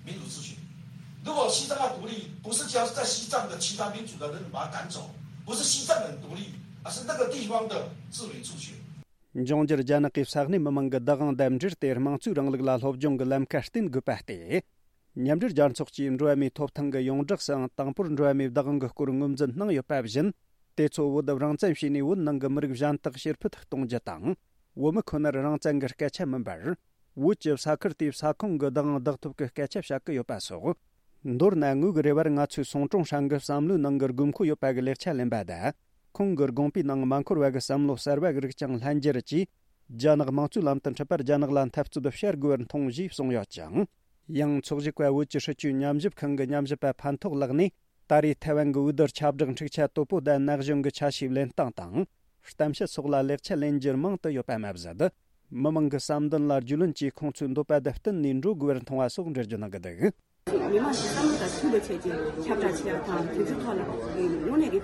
民主自决。如果西藏要独立，不是只要是在西藏的其他民族的人把他赶走，不是西藏人独立，而是那个地方的自由民主权。 འབྱུང་འགྱུར་རྒྱ་ནག་གི་ས་གནས་མི་མང་གི་བདག་དབང་དང་འབྲེལ་ཏེ། དམངས་གཙོའི་རིང་ལུགས་ལ་སློབ་སྦྱོང་གི་ལམ་ཁ་བརྟེན་དགོས་པ་སྟེ། མཉམ་འབྲེལ་རྒྱལ་ཚོགས་ཀྱིས་འགྲོ་བ་མིའི་ཐོབ་ཐང་གི་ཡོངས་བསྒྲགས་སུའང་དང་པོར་འགྲོ་བ་མིའི་བདག་དབང་གི་སྐོར་ངོས་འཛིན་གནང་ཡོད་པ་བཞིན། དེ་ཚོ་བོད་དུ་རང་བཙན་བྱས་ནས་བོད་ནང་གི་མི་རིགས་གཞན་དག་ཕྱིར་ཕུད་གཏོང་རྒྱུ་དང་། བོད་མི་ཁོ་ནར་རང་བཙན་གྱི་སྐད་ཆ་མིན་པར། བོད་ཀྱི་ས་ཁུལ་དེའི་ས་ཁོངས་ཀྱི་བདག་དབང་བདག་ཐོབ་ཀྱི་སྐད་ཆ་བཤད་ཀྱི་ཡོད་པ་སོགས། མདོར་ན་ངོས་ཀྱི་རེ་བར་ང་ཚོས་སུང་ཀྲུང་ཧྲན་གྱི་བསམ་བློའི་ནང་གི་དགོས་མཁོ་ཡོད་པ་གི་ལེགས་ཆ་ལེན་པ་དང་། ཁོང་གི་དགོངས་པའི་ནང་མ་འཁོར་བ་གི་བསམ་བློ་གསར་བ་གི་རིགས་ཀྱང་ལྷན་སྦྱར་གྱིས། རྒྱ་ནག་དམངས་གཙོའི་ལམ་དུ་འཁྲིད་པར་རྒྱ་ནག་ལ་འཐབ་རྩོད་བྱ་དགོས་པར་མཐོང་ཞེས་གསུངས་ཡོད་ཅིང་། ཡང་ཚོགས་ཞུགས་པ་བོད་ཀྱི་སྲིད་བྱུས་ཉམས་ཞིབ་ཁང་གི་ཉམས་ཞིབ་པ་ཕན་ཐོགས་ལགས་ནས། ད་རེས་ཐའེ་ཝན་གྱི་འོས་བསྡུར་ཁྱབ་བསྒྲགས་འཁྲུག་ཆ་དོད་པོ་དང་ན་གཞོན་གྱི་ཆ་ཤས་ལེན་སྟངས་དང་། གཏམ་བཤད་སོགས་ལ་ལེགས་ཆ་ལེན་རྒྱུར་མང་དུ་ཡོད་པ་མ་ཟད། མི་མང་གི་བསམ་འདུན་ལ་རྒྱུས་ལོན་གྱིས་ཁོང་ཚོའི་འདོད་པ་དང་བསྟུན་ནས་འགྲོ་དགོས་པར་མཐོང་བ་སོགས་འགྲེལ་བརྗོད་གནང་གི་འདུག་མི་མང་གི་བསམ་བློ་དང་མཐུན་པའི་ཆེད་ཀྱི་ཁྱབ་བསྒྲགས་བྱེད་ཡག་དང་། དེ་ཚོའི་ཐོག་ལ་དངོས་གནས་ཀྱི་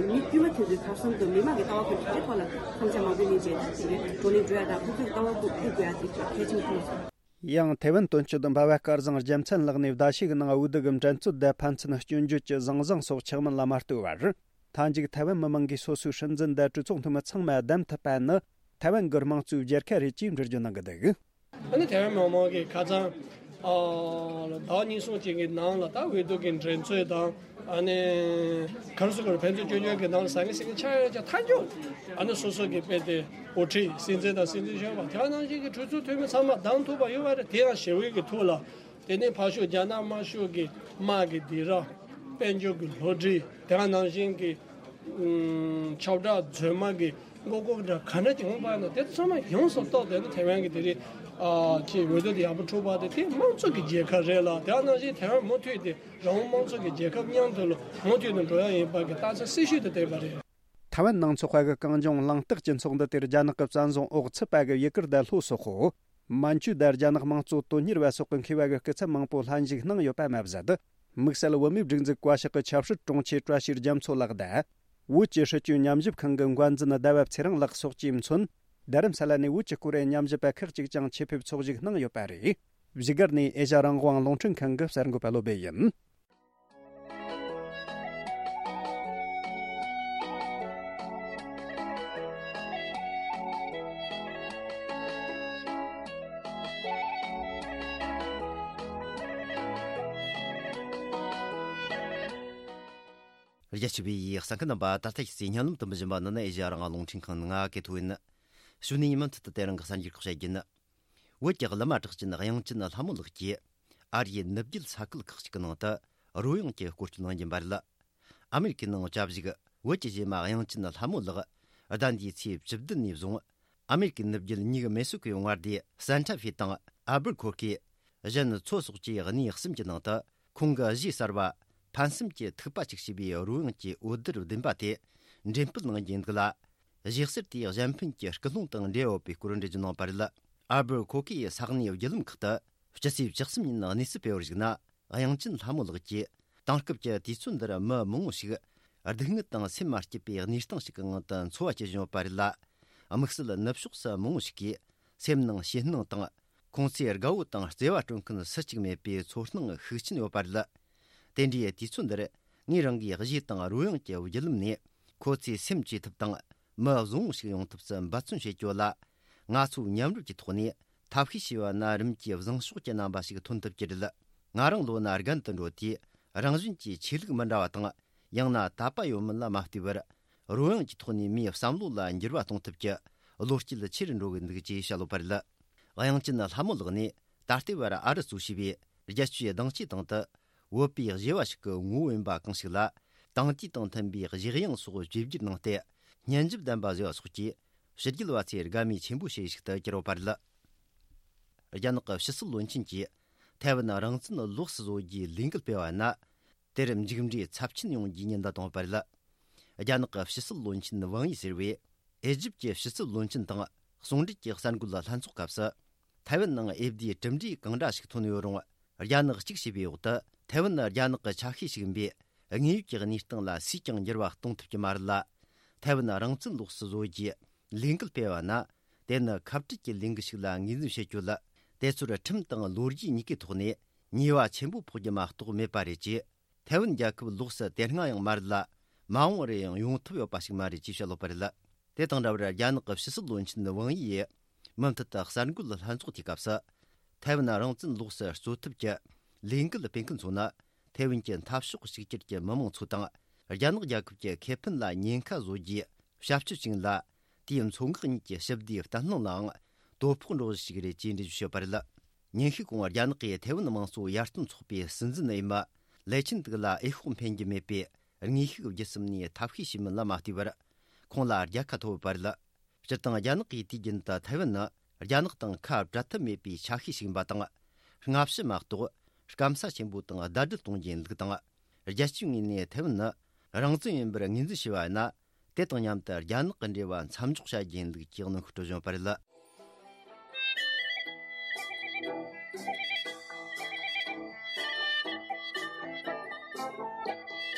མི་དཀྱུས་མ་དེ་ཚོའི་ཐབས་གསུམ་དུ་མི་མང་གི་ལྟ་བ་ཁོ་ཚོའི་ཐོག་ལ་བསམ་འཆར་མང་པོ་གླེང་བྱས། ད་དེ་གའི་བགྲོ་གླེང་འགྲོ་ཡག་དང་། ཁོ་ཚོའི་ལྟ་བ་ཁོ་ཐུག་དགོས་ཡག་དེ་གལ་ཆེན་པོ་མཐོང་སོང་། ཡང་ཐའེ་ཝན་དོན་གཅོད་འབའ་བ་སྐལ་བཟང་རྒྱལ་མཚན་ལགས་ནས་ཟླ་ཤས་ཀྱི་ནང་འོས་བསྡུ་གི་འགྲན་རྩོད་དང་ཕན་ཚུན་སྐྱོན་བརྗོད་ཀྱི་ཟང་ཟིང་སོགས་ཆགས་མིན་ལ་མ་ལྟོས་པར། མཐའ་མཇུག་ཐའེ་ཝན་མི་མང་གིས་སོ་སོའི་སྲིད་འཛིན་དང་གྲོས་ཚོགས་འཐུས་མི་ཚང་མ་བདམས་ཐུབ་པ་ནི་ཐའེ་ཝན་གྱི་དམངས་གཙོའི་རྒྱལ་ཁ་རེད་ཅེས་འགྲེལ་བརྗོད་གནང་གི་འདུག་ཨ་ནི་ཐའེ་ཝན་མི་མང་གིས་ཁ་སང་ཨ་ཟླ་བ་གཉིས་གསུམ་ཅིག་གི་ནང་ལ་ད་འོས་བསྡུ་གི་འགྲན་རྩོད་དང་། ཨ་ནི་ག་རེ་ཟེར་དགོས་རེད། ཕན་ཚུན་སྐྱོན་བརྗོད་ཀྱི་ནང་ལ་ཟ་མཁན་ཟ་མཁན་ཆགས་ཡོད་ཀྱང་། མཐའ་མཇུག་ཨ་ནི་སོ་སོ་གི་དཔེ་དེ་འགོ་ཁྲིད་སྲིད་འཛིན་དང་སྲིད་འཛིན་གཞོན་པ་དེ་ནང་བཞིན་གྱི་གྲོས་ཚོགས་འཐུས་མི་ཚང་མ་བདམས་ཐུབ་པ་ཡོད་པ་རེད། དེ་ཡང་ཞི་བའི་གི་ཐོག་ལ། དེ་ནས་ཕར་ཕྱོགས་རྒྱ་ནག་དམར་ཤོག་གི་དམག་གི་སྡིགས་ར། དཔལ་འབྱོར་གྱི་བསླུ་བྲིད། དེ་ནང་བཞིན་གྱི་ཨུམ་ཁྱབ་བསྒྲགས་རྫུན་མ་གི་མགོ་སྐོར་འདྲ་ག་འདྲ་ཅིག་འོང་པ་ན། དེ་ཚང་མ་ཡོངས་སུ་རྟོགས་ཏེ་ནི་ཐའེ་ཝན་གྱི་དེ་རིང་ཨ་ཅིག་འོས་བསྡུ་དེ་ཡག་པོ་འཁྲུག་པ་དེ། དེ་དམངས་གཙོ་གི་རྒྱལ་ཁབ་རེད་ལ། དེ་ནང་བཞིན་ཐའེ་ཝན་མུ་མཐུད་དེ་རང་དབང་དམངས་གཙོ་གི་རྒྱལ་ཁབ་མཉམ་དུ་ལ་མུ་མཐུད་དུ་འགྲོ་ཡག་ཡིན་པ་གི་རྟགས་མཚན་གསལ་ཤོས་དེ་བསྟན་པ་རེད། ཐའེ་ཝན་ནང་འཚོགས་པ་གི་གངས་ལྗོངས་གླེང་སྟེགས་ཀྱི་ཚོགས་འདུ་དེར་རྒྱ་ནག་གི་བཙན་བཟུང་འོག་ཚུད་པ་གི་ཡུ་གུར་དང་ལྷོ་སོག་པོ། མན་ཇུ་དང་རྒྱ་ནག་དམངས་གཙོ་དོན་གཉེར་བ་སོགས་ཀྱི་མཁས་པ་གི་སྐུ་ཚབ་མང་པོ་ལྷན་ཞུགས་གནང་ཡོད་པ་མ་ཟད། དམིགས་བསལ་བོད་མིའི་སྒྲིག་འཛུགས་བཀའ་ཤག་གི་ཆབ་སྲིད་དྲུང་ཆེ་བཀྲ་ཤིས་རྒྱ་མཚོ་ལགས་དང་། བོད་ཀྱི་སྲིད་བྱུས་ཉམས་ཞིབ་ཁང་གི་འགན་འཛིན་ཟླ་བ་ཚེ་རིང་ལགས་སོགས་ཀྱིས་མཚོན། རྡ་རམ་ས་ལ་ནས་བོད་ཀྱི་སྐོར་ཉམས་ཞིབ་པ་ཁག་ཅིག་ཀྱང་ཆེད་ཕེབས་ཚོགས་ཞུགས་གནང་ཡོད་པ་རེད། བཞུགས་སྒར་ནས་ཨེ་ཤ་རང་དབང་རླུང་འཕྲིན་ཁང་གི་གསར་འགོད་པ་བློ་སྦེ་ཡིན། རྒྱ་ཆེ་བའི་གསན་མཁན་རྣམ་པ། ད་ལྟ་ཁྱེད་ཚོས་སྙན་ལམ་དུ་འབུལ་བཞིན་པ་ནི་ནི་ཨེ་ཤ་ཡ་རང་དབང་རླུང་འཕྲིན་ཁང་ནས་ང་གི་ཐོ་ཡིན། གཞུག་ནས་མུ་མཐུད་དུ་དེ་རིང་གི་གསར་འགྱུར་ཁག་བཤད་རྒྱུ་ཡིན། བོད་ཀྱི་བླ་མ་གྲགས་ཅན་དབྱངས་ཅན་ལྷ་མོ་ལགས་ཀྱིས་ཨ་རིའི་ནུབ་རྒྱུད་ས་ཁུལ་ཁག་ཅིག་གི་ནང་དུ་རོལ་དབྱངས་ཀྱི་སྐོར་སྐྱོད་གནང་རྒྱུ་ཡིན་པ་རེད། ཨ་མེ་རི་ཀའི་ནང་བཅའ་བཞུགས་བོད་ཀྱི་གཞས་མ་དབྱངས་ཅན་ལྷ་མོ་ལགས་ཟླ་འདིའི་ཚེས་བཅུ་བདུན་ནས་བཟུང་ཨ་མེ་རི་ཀའི་ནུབ་རྒྱུད་ཉིག་མེ་སོ་ཀའི་མངའ་སྡེ་སན་ཊ་ཧྥེ་དང་ཨལ་བུར་ཁོར་ཁེ། གཞན་མཚོ་སོགས་ཀྱི་གནས་གསུམ་གྱི་ནང་དུ་ཁོང་གི་གཞས་གསར་བ་ཕན་སེམས་ཀྱི་ཐིགས་པ་ཅིག་ཞེས་པའི་རོལ་དབྱངས་ཀྱི་འོད་སྡེར་ལྡན་པ་དེ་འགྲེམས་སྤེལ་གནང་རྒྱུ་འདུག་ལ། གཞས་གསར་དེའི་གཞན་ཕན་གྱི་སྐུལ་སློང་དང་འབྲེལ་ཡོད་པའི་སྐོར་འགྲེལ་བརྗོད་གནང་བ་རེད། ཨལ་བུར་ཁོ་ཁེ་ཡི་ས་གནས་བརྒྱུད་ལམ་ཁག་ཏུ་སྤྱི་ཚེས་བཅུ་གསུམ་ཉིན་གནས་ཚུལ་སྤེལ་བར་གཞིགས་ན། དབྱངས་ཅན་ལྷ་མོ་ལགས་ཀྱིས་དེང་སྐབས་ཀྱི་དུས་ཚོད་འདིར་མི་མང་བོ་ཞིག་སྡུག་བསྔལ་དང་སེམས་མ་སྐྱིད་པའི་གནས་སྟངས་ཤིག་གི་ངང་དུ་འཚོ་བ་སྐྱེལ་བཞིན་ཡོད་པ་རེད་ལ། དམིགས་བསལ་ནུབ་ཕྱོགས་སུ་མང་བོ་ཞིག་གིས་སེམས་ནང་ཞེད་སྣང་དང་། ཁོང་ཚོའི་དགའ་བོ་དང་བརྩེ་བ་སྤྲོད་མཁན་སུ་གཅིག་མེད་པའི་ཚོར་སྣང་ཤུགས་ཆེན་ཡོད་པ་རེད། དེ་འདྲའི་དུས་ཚོད་འདིར་ངས་རང་གིས་གཞས་དང་རོལ་དབྱངས་ཀྱི་བརྒྱུད་ལམ་ནས་ཁོ་ཚོའི་སེམས་བཅོས་ཐབས་དང་། མི་བཟང་བོ་ཞིག་ཡོང་ཐབས་སུ་འབད་བརྩོན་བྱེད་རྒྱུ་ལ། ང་ཚོས་མཉམ་རུབ་ཀྱི་ཐོག་ནས་ཐབས་ཤེས་བྱས་པ་ན་རིམ་གྱིས་བཟང་ཕྱོགས་ཀྱི་རྣམ་པ་ཞིག་ཐོན་ཐུབ་ཀྱི་རེད། ང་རང་ལོ་ན་རྒན་དུ་འགྲོ་དུས་རང་བཞིན་གྱིས་ཆོས་ལུགས་མི་འདྲ་བ་དང་། ཡང་ན་དད་པ་ཡོད་མིན་ལ་མ་ལྟོས་པར། རོལ་དབྱངས་ཀྱི་ཐོག་ནས་མིའི་བསམ་བློ་ལ་འགྱུར་བ་གཏོང་ཐབས་ཀྱི་བློ་སྐྱེད་ཆེ་རུ་འགྲོ་གི་འདུག་ཅེས་བཤད་ཡོད་པ་རེད། དབྱངས་ཅན་ལྷ་མོ་ལགས་ནི་ད་ལྟའི་བར་ཨ་རི་གཙོས་བྱས་པའི་རྒྱལ་སྤྱིའི་གདེང་ཆའི་སྟེང་དུ་བོད་པའི་གཞས་པ་ཞིག་གི་ངོ་བོ་ཡིན་པ་གང་ཞིག་ལ། དེང་དུས་དང་མཐུན་པའི་གཞས་དབྱངས་སོགས་བཅོས་བསྒྱུར་གནང་སྟེ། སྙན་འཇེབས་ལྡན་པ་བཟོས་པ་སོགས་ཀྱིས་ཕྱི་རྒྱལ་བ་ཚོའི་དགའ་མོས་ཆེན་པོ་བྱེད་ཡུལ་ཞིག་ཏུ་གྱུར་ཡོད་པ་རེད། རྒྱ་ནག་གི་ཕྱི་སྲིད་བློན་ཆེན་གྱིས་ཐའེ་ཝན་རང་བཙན་ལོགས་སུ་བཟོ་རྒྱུའི་ལས་འགུལ་སྤེལ་བ་ན། དེར་མཇུག་འབྲས་ཚབས་ཆེན་ཡོང་རྒྱུའི་ཉེན་བརྡ་བཏང་བ་རེད། རྒྱ་ནག་གི་ཕྱི་སྲིད་བློན་ཆེན་ཝང་ཡི་ཟེར་བས། ཨེ་ཇིབ་ཀྱི་ཕྱི་སྲིད་བློན་ཆེན་དང་ཟུང་འབྲེལ་གྱི་གསར་འགོད་ལྷན་ཚོགས་སྐབས་སུ། ཐའེ་ཝན་ནང་འོས་བསྡུའི་གྲུབ་འབྲས་གང་འདྲ་ཞིག་ཐོན་ཡོད་རུང་། རྒྱ་ནག་གཅིག་བྱས་པའི་འོག་ཏུ་ཐའེ་ཝན་ནི་རྒྱ་ནག་གི་ཆ་ཤས་ཤིག་ཡིན་པས། དངོས་ཡོད་ཀྱི་གནས་སྟངས་ལ་སུས་ཀྱང་འགྱུར་བ་གཏོང་ཐུབ་ཀྱི་མ་རེད་ལ། ཐའེ་ཝན་རང་བཙན་ལོགས་སུ་བཟོ་རྒྱུའི་ལས་འགུལ་སྤེལ་བ་ན། དེ་ནི་ཁ་བྲལ་གྱི་ལས་འགུལ་ཞིག་ལ་ངོས་འཛིན་བྱེད་རྒྱུ་ལ། དེ་ཚོར་ཁྲིམས་དང་ལོ་རྒྱུས་གཉིས་ཀའི་ཐོག་ནས་ཉེས་པ་ཆེན་པོ་ཕོག་རྒྱུ་མ་གཏོགས་མེད་པ་རེད་ཅེས། ཐའེ་ཝན་རྒྱལ་ཁབ་ལོགས་སུ་དེ་སྔ་ཡང་མ་རེད་ལ། མ་འོངས་རེ་ཡང་ཡོང་ཐབས་ཡོད་པ་ཞིག་མ་རེད་ཅེས་བཤད་ཡོད་པ་རེད། དེ་དང་འདྲ་བར་རྒྱ་ནག་གི་ཕྱི་སྲིད་བློན་ཆེན་ཝང་ཡི་ཡིས་མུ་མཐུད་དུ་གསར་འགོད་ལྷན་ཚོགས་དེའི་སྐབས་སུ། ཐའེ་ཝན་རང་བཙན་ལོགས་སུ་རྩོད་ཐབས་ཀྱི་ལས་འགུལ་སྤེལ་མཁན་ཚོ་ནི། ཐའེ་ཝན་གྱི་འཐབ་ཕྱོགས་གཅིག་གྱུར་གྱི་མི་མང་ཚོ་དང་། རྒྱ་ནག་རྒྱལ་ཁབ་ཀྱི་ཁེ་ཕན་ལ་ཉེན་ཁ་བཟོ་རྒྱུའི་བྱ་སྤྱོད་ཅིག་ཡིན་ལ། དེའི་མཚོ་འགག་གཉིས་ཀྱི་ཞི་བདེའི་བརྟན་ལྷིང་ལའང་དོ་ཕོག་འགྲོ་གཞི་ཞིག་རེད་ཅེས་འགྲེལ་བརྗོད་བྱས་པ་རེད། ཉིན་ཤས་གོང་རྒྱ་ནག་གིས་ཐའེ་ཝན་དམངས་གཙོ་ཡར་ཐོན་ཚོགས་པའི་སྲིད་འཛིན་འོས་མི་ལེ་ཆིན་ཏུག་ལ་འོས་ཤོག་འཕེན་རྒྱུ་མེད་པའི་དངོས་ཤུགས་བརྒྱུད་གསུམ་ནས་ཐབས་ཤེས་བྱས་མིན་ལ་མ་ལྟོས་པར། ཁོང་ལ་རྒྱལ་ཁ་ཐོབ་ཡོད་པ་རེད། སྤྱིར་བཏང་རྒྱ་ནག་གིས་དུས་རྒྱུན་དུ་ཐའེ་ཝན་ནི་རྒྱ་ནག་དང་ཁ་བྲལ་ཐབས་མེད་པའི་ཆ་ཤས་ཤིག་ཡིན་པ་དང་། སྔ་ཕྱི་མ་གཏོགས་སྐམ་ས་ཆེན་པོ་དང་ཟླ་སྒྲིལ་གཏོང་རྒྱུ་ཡིན་ལུགས་དང་། རྒྱལ་སྤྱིའི་ངོས་ནས་ཐའེ་ཝན་ནི་རང་བཙན་ཡིན་པར་ངོས་འཛིན་བྱས་པ་ཡིན་ན། དེ་དང་མཉམ་དུ་རྒྱ་ནག་གི་འབྲེལ་བ་མཚམས་འཇོག་བྱ་རྒྱུ་ཡིན་ལུགས་ཀྱི་གནོན་ཤུགས་སྤྲོད་བཞིན་པ་རེད།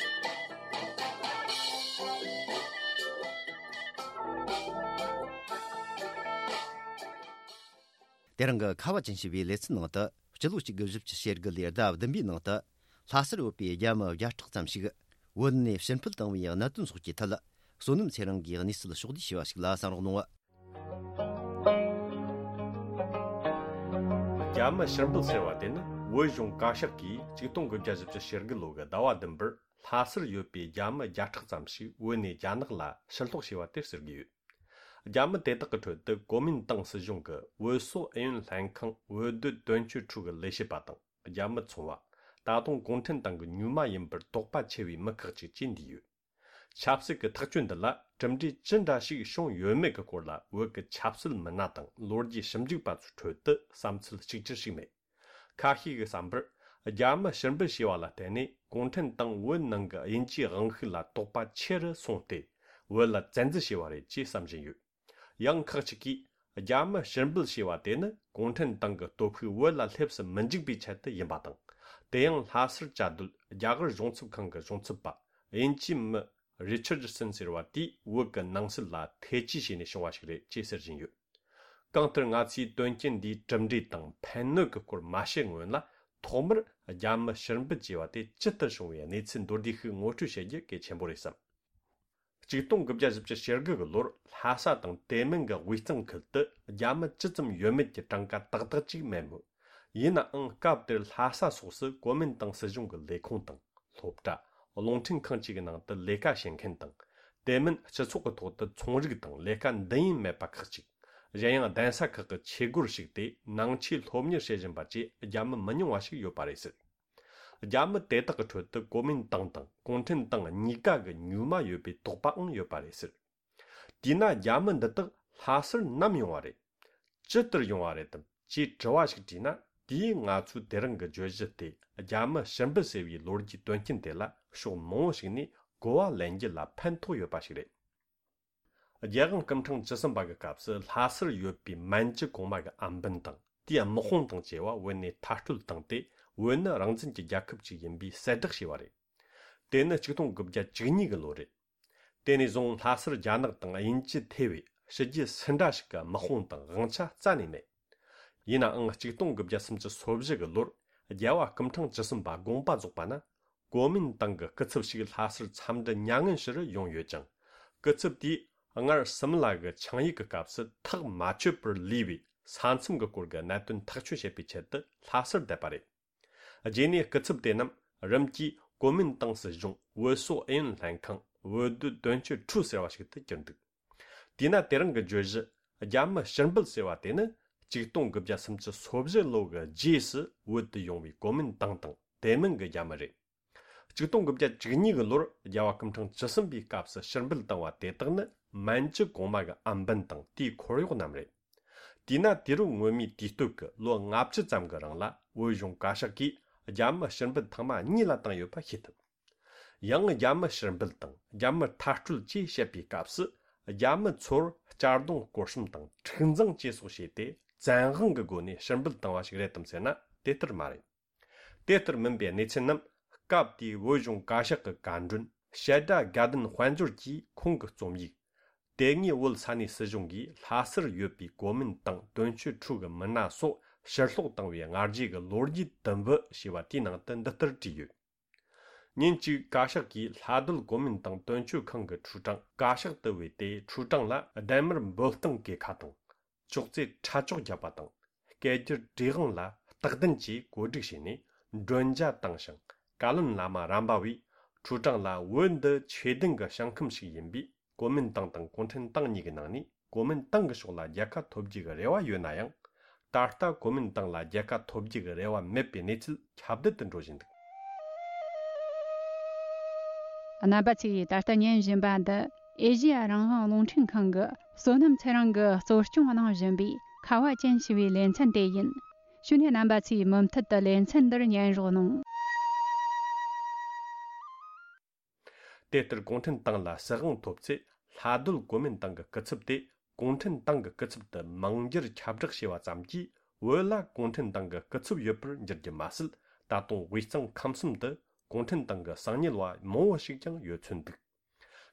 དེ་རིང་གི་ཁ་བ་ཅན་ཞེས་པའི་ལེ་ཚན་ནང་དུ། སྤྱི་ལོ་གཅིག་དགུ་བཞི་བཅུ་ཞེ་དགུ་ལོའི་ཟླ་བདུན་པའི་ནང་དུ། ལྷ་སར་ཡོད་པའི་རྒྱ་མི་བརྒྱ་ཕྲག་ཙམ་ཞིག་བོད་ནས་ཕྱིར་འཕུད་བཏང་བའི་གནད་དོན་སོགས་ཀྱི་ཐད། བསོད་ནམས་ཚེ་རིང་གིས་གནས་ཚུལ་ཕྱོགས་བསྡུས་ཞུས་པ་ཞིག་ལ་གསན་རོགས་གནང་། རྒྱ་མི་ཕྱིར་འབུད་ཟེར་བ་དེ་ནི། བོད་གཞུང་བཀའ་ཤག་གིས་ཆིག་སྟོང་དགུ་བརྒྱ་བཞི་བཅུ་ཞེ་དགུ་ལོ་གི་ཟླ་བ་བདུན་པར་ལྷ་སར་ཡོད་པའི་རྒྱ་མི་བརྒྱ་ཕྲག་ཙམ་ཞིག་བོད་ནས་རྒྱ་ནག་ལ་ཕྱིར་སློག་བྱས་པ་དེར་ཟེར་གྱི་ཡོད། རྒྱ་མི་དེ་དག་གི་ཁྲོད་དུ་གོ་མིན་ཏང་སྲིད་གཞུང་གི་བོད་སོག་ཨུ་ཡོན་ལྷན་ཁང་བོད་སྡོད་དོན་གཅོད་ཁྲུའུ་གི་ལས་བྱེད་པ་དང་། རྒྱ་མི་ཚོང་བ། ད་དུང་གུང་ཁྲན་ཏང་གི་མྱུལ་མ་ཡིན་པར་དོགས་པ་ཆེ་བའི་མི་ཁག་ཅིག་བཅས་འདུས་ཡོད། ཆབ་སྲིད་ཀྱི་ཐག་གཅོད་འདི་ལ་གྲུབ་འབྲས་ཅི་འདྲ་ཞིག་བྱུང་ཡོད་མེད་ཀྱི་སྐོར་ལ། བོད་ཀྱི་ཆབ་སྲིད་མི་སྣ་དང་ལོ་རྒྱུས་ཞིབ་འཇུག་པ་ཚོའི་ཁྲོད་དུ་བསམ་ཚུལ་གཅིག་གྱུར་ཞིག་མེད། ཁ་ཤས་ཀྱིས་བསམ་པར། རྒྱ་མི་ཕྱིར་འབུད་བྱས་པ་ལ་བརྟེན་ནས་གུང་ཁྲན་ཏང་བོད་ནང་གི་དབྱིན་ཇིའི་དབང་ཤུགས་ལ་དོགས་པ་ཆེ་རུ་སོང་སྟེ། བོད་ལ་བཙན་འཛུལ་བྱས་པ་རེད་ཅེས་བསམ་བཞིན་ཡོད། ཡང་ཁག་ཅིག་གིས། རྒྱ་མི་ཕྱིར་འབུད་བྱས་པ་དེ་ནི་གུང་ཁྲན་ཏང་གི་སྟོབས་ཤུགས་བོད་ལ་སླེབས་སུ་མི་འཇུག་པའི་ཆེད་དུ་ཡིན་པ་དང་། དེ་ཡང་ལྷ་སར་བཅའ་སྡོད་རྒྱ་གར་གཞུང་ཚབ་ཁང་གི་གཞུང་ཚབ་པ་དབྱིན་ཇིའི་མི་རི་ཆར་ཌི་སན་ཟེར་བ་དེས་བོད་ཀྱི་ནང་སྲིད་ལ་ཐེ་ཇུས་བྱས་ནས་བྱུང་བ་ཞིག་རེད་ཅེས་ཟེར་བཞིན་ཡོད། གང་ལྟར་ང་ཚོས་དོན་རྐྱེན་འདིའི་གྲུབ་འབྲས་དང་ཕན་གནོད་ཀྱི་སྐོར་མ་བཤད་སྔོན་ལ། ཐོག་མར་རྒྱ་མི་ཕྱིར་འབུད་བྱས་པ་དེ་ཇི་ལྟར་བྱུང་བའི་གནས་ཚུལ་མདོར་བསྡུས་ཤིག་ངོ་སྤྲོད་བྱེད་རྒྱུ་གལ་ཆེན་པོ་རེད་བསམ། ཆིག་སྟོང་དགུ་བརྒྱ་བཞི་བཅུ་ཞེ་དགུ་གི་ལོར་ལྷ་ས་དང་དེ་མིན་གྱི་དབུས་གཙང་ཁུལ་དུ་རྒྱ་མི་ཇི་ཙམ་ཡོད་མེད་ཀྱི་གྲངས་ཀ་ཏག་ཏག་ཅིག་མེད་མོད། ཡིན་ནའང་སྐབས་དེར་ལྷ་ས་སོགས་སུ་གོ་མིན་ཏང་སྲིད་གཞུང་གི་ལས་ཁུངས་དང་སློབ་གྲྭ། རླུང་འཕྲིན་ཁང་གཅིག་གི་ནང་དུ་ལས་ཀ་བྱེད་མཁན་དང་། དེ་མིན་སྤྱི་ཚོགས་ཀྱི་ཐོག་ཏུ་ཚོང་རིགས་དང་ལས་ཀ་འདི་ཡིན་མེད་པ་ཁག་ཅིག་གཞན་ཡང་གདན་ས་ཁག་གི་ཆོས་སྒོར་ཞུགས་ཏེ་ནང་ཆོས་སློབ་གཉེར་བྱེད་བཞིན་པ་བཅས་རྒྱ་མི་མི་ཉུང་བ་ཞིག་ཡོད་པ་རེད་ཟེར། རྒྱ་མི་དེ་དག་གི་ཁྲོད་དུ་གོ་མིན་ཏང་དང་གུང་ཁྲན་ཏང་གཉིས་ཀ་གི་མྱུལ་མ་ཡོད་པའི་དོགས་པའང་ཡོད་པ་རེད་ཟེར། དེས་ན་རྒྱ་མི་འདི་དག་ལྷ་སར་ནམ་ཡོང་བ་རེད། ཇི་ལྟར་ཡོང་བ་རེད་དམ་ཅེས་དྲི་བ་ཞིག་དྲིས་ན། དེས་ང་ཚོས་དེ་རིང་གི་བརྗོད་གཞི་དེ་རྒྱ་མི་ཕྱིར་འབུད་ཟེར་བའི་ལོ་རྒྱུས་དོན་རྐྱེན་དེ་ལ་ཕྱོགས་མང་བོ་ཞིག་ནས་གོ་བ་ལེན་རྒྱུ་ལ་ཕན་ཐོགས་ཡོད་པ་ཞིག་རེད། རྒྱལ་དབང་སྐུ་ཕྲེང་བཅུ་གསུམ་པ་གི་སྐབས་སུ་ལྷ་སར་ཡོད་པའི་མན་ཇུ་གོང་མ་གི་ཨམ་བན་དང་དེའི་དམག་དཔུང་དང་བཅས་པ་བོད་ནས་མཐར་སྐྲོད་བཏང་སྟེ། བོད་ནི་རང་བཙན་གྱི་རྒྱལ་ཁབ་ཅིག་ཡིན་པའི་གསལ་བསྒྲགས་བྱས་པ་རེད། དེ་ནི་ཆིག་སྟོང་དགུ་བརྒྱ་བཅུ་གཉིས་གི་ལོ་རེད། དེ་ནས་བཟུང་ལྷ་སར་རྒྱ་ནག་དང་དབྱིན་ཇི་ཐེ་བའི་ཕྱི་རྒྱལ་སུ་འདྲ་ཞིག་གི་དམག་དཔུང་དང་དབང་ཆ་རྩ་ནས་མེད། ཡིན་ནའང་ཆིག་སྟོང་དགུ་བརྒྱ་སུམ་ཅུ་སོ་བཞི་གི་ལོར་རྒྱལ་བ་སྐུ་ཕྲེང་བཅུ་གསུམ་པ་དགོངས་པ་རྫོགས་པ་ན། གོ་མིན་ཏང་གི་སྐུ་ཚབ་ཞིག་ལྷ་སར་འཚམས་འདྲི་མྱ་ངན་ཞུ་རུ་ཡོང་ཡོད་ཅིང་། སྐུ་ཚབ་དེས་སྔར་སིམ་ལ་གི་ཆིངས་ཡིག་གི་སྐབས་སུ་ཐག་མ་ཆོད་པར་ལུས་པའི་ས་མཚམས་ཀྱི་སྐོར་གྱི་གནད་དོན་ཐག་གཅོད་བྱེད་པའི་ཆེད་དུ་ལྷ་སར་བསྡད་པ་རེད། རྗེས་ནས་སྐུ་ཚབ་དེ་རྣམས་རིམ་གྱིས་གོ་མིན་ཏང་སྲིད་གཞུང་བོད་སོག་ཨུ་ཡོན་ལྷན་ཁང་བོད་སྡོད་དོན་གཅོད་ཁྲུའུ་ཟེར་བ་ཞིག་ཏུ་གྱུར་འདུག་དེས་ན་དེ་རིང་གི་བརྗོད་གཞི་རྒྱ་མི་ཕྱིར་འབུད་ཟེར་བ་དེ་ནི་ཆིག་སྟོང་དགུ་བརྒྱ་སུམ་ཅུ་སོ་བཞི་ལོ་གི་རྗེས་སུ་བོད་དུ་ཡོང་བའི་གོ་མིན་ཏང་དང་དེ་མིན་གྱི་རྒྱ་མི་རེད། ཆིག་སྟོང་དགུ་བརྒྱ་བཅུ་གཉིས་གི་ལོར་རྒྱལ་བ་སྐུ་ཕྲེང་བཅུ་གསུམ་པའི་སྐབས་སུ་ཕྱིར་འབུད་བཏང་བ་དེ་དག་ནི་མན་ཇུ་གོང་མ་གི་ཨམ་བན་དང་དེའི་འཁོར་གཡོག་རྣམས་རེད། དེས་ན་དུས་རབས་སྔོན་མའི་དུས་སྟོད་ཀྱི་ལོ་ལྔ་བཅུ་ཙམ་གྱི་རིང་ལ་བོད་གཞུང་བཀའ་ཤག་གིས་རྒྱ་མི་ཕྱིར་འབུད་ཐེངས་མ་གཉིས་ལ་བཏང་ཡོད་པ་ཤེས་ཐུབ། ཡང་རྒྱ་མི་ཕྱིར་འབུད་དང་རྒྱ་མི་མཐར་སྐྲོད་ཅེས་བཤད་པའི་སྐབས་སུ་རྒྱ་མི་ཚོར་གཅར་རྡུང་སྐོར་གསུམ་དང་འཁྲུག་འཛིང་བཅས་སོགས་བྱས་ཏེ་བཙན་དབང་གི་སྒོ་ནས་ཕྱིར་འབུད་བཏང་བ་ཞིག་རེད་དམ་ཟེར་ན་དེ་ལྟར་མ་རེད། དེ་ལྟར་མིན་པའི་གནས་ཚུལ་རྣམས་སྐབས་དེའི་བོད་གཞུང་བཀའ་ཤག་གི་བཀའ་མགྲོན་བཤད་སྒྲ་དགའ་ལྡན་དཔལ་འབྱོར་གྱིས་ཁོང་གི་རྩོམ་ཡིག་དེ་སྔའི་བོད་ས་གནས་སྲིད་གཞུང་གིས་ལྷ་སར་ཡོད་པའི་གོ་མིན་ཏང་དོན་གཅོད་ཁྲུའུ་གི་མི་སྣ་སོགས་ཕྱིར་སློག་བཏང་བའི་སྔ་རྗེས་ཀྱི་ལོ་རྒྱུས་དུམ་བུ་ཞེས་པ་དེའི་ནང་དུ་འདི་ལྟར་བྲིས་ཡོད། ཉིན་གཅིག་བཀའ་ཤག་གིས་ལྷ་སྡོད་གོ་མིན་ཏང་དོན་གཅོད་ཁང་གི་ཁྲུའུ་ཀྲང་བཀའ་ཤག་ཏུ་བོས་ཏེ། ཁྲུའུ་ཀྲང་ལ་ལྡན་མར་འབོད་སྟངས་གོས་ཁ་དང་། ཅོག་ཙེ་ཁྲ་ཅོག་བརྒྱབ་པ་དང་། སྐད་སྒྱུར་བྲིས་དབང་ལ་སྟག་གདན་གྱིས་གོ་སྒྲིག་བྱས་ནས་མགྲོན་ཇ་བཏང་ཞིང་། བཀའ་བློན་བླ་མ་རམ་པ་བས་ཁྲུའུ་ཀྲང་ལ་བོད་འདི་ཆོས་ལྡན་གྱི་ཞིང་ཁམས་ཤིག་ཡིན་པས། གོ་མིན་ཏང་དང་གུང་ཁྲན་ཏང་གཉིས་ཀྱི་ནང་ནས་གོ་མིན་ཏང་གི་ཕྱོགས་ལ་རྒྱལ་ཁ་ཐོབ་རྒྱུ་གི་རེ་བ་ཡོད་ན་ཡང་། ད་ལྟ་གོ་མིན་ཏང་ལ་རྒྱལ་ཁ་ཐོབ་རྒྱུ་གི་རེ་བ་མེད་པའི་གནས་ཚུལ་ཁྱབ་གདལ་དུ་འགྲོ་བཞིན་འདུག། རྣམ་པ་ཚོས་ད་ལྟ་ཉན་བཞིན་པ་འདི་ཨེ་ཤེ་ཡ་རང་དབང་རླུང་འཕྲིན་ཁང་གི་བསོད་ནམས་ཚེ་རིང་གིས་གཙོ་སྐྱོང་གནང་བཞིན་པའི་ཁ་བ་ཅན་ཞེས་པའི་ལེ་ཚན་དེ་ཡིན། ཞུ་ནས་རྣམ་པ་ཚོས་མུ་མཐུད་དུ་ལེ་ཚན་འདིར་ཉན་རོགས་གནང་། དེ་ལྟར་གུང་ཁྲན་ཏང་ལ་སྲིད་དབང་ཐོབ་ཚེ། ལྷ་སྡོད་གོ་མིན་ཏང་གི་སྐུ་ཚབ་དེ་གུང་ཁྲན་ཏང་གི་སྐུ་ཚབ་ཏུ་མིང་བསྒྱུར་ཁྱབ་བསྒྲགས་བྱས་པ་ཙམ་གྱིས། བོད་ལ་གུང་ཁྲན་ཏང་གི་སྐུ་ཚབ་ཡོད་པར་འགྱུར་རྒྱུ་མ་ཟད། ད་དུང་དབུས་གཙང་ཁམས་གསུམ་དུ་གུང་ཁྲན་ཏང་གི་གསང་ཉུལ་བ་མང་བོ་ཞིག་ཀྱང་ཡོད་ཚོད་འདུག།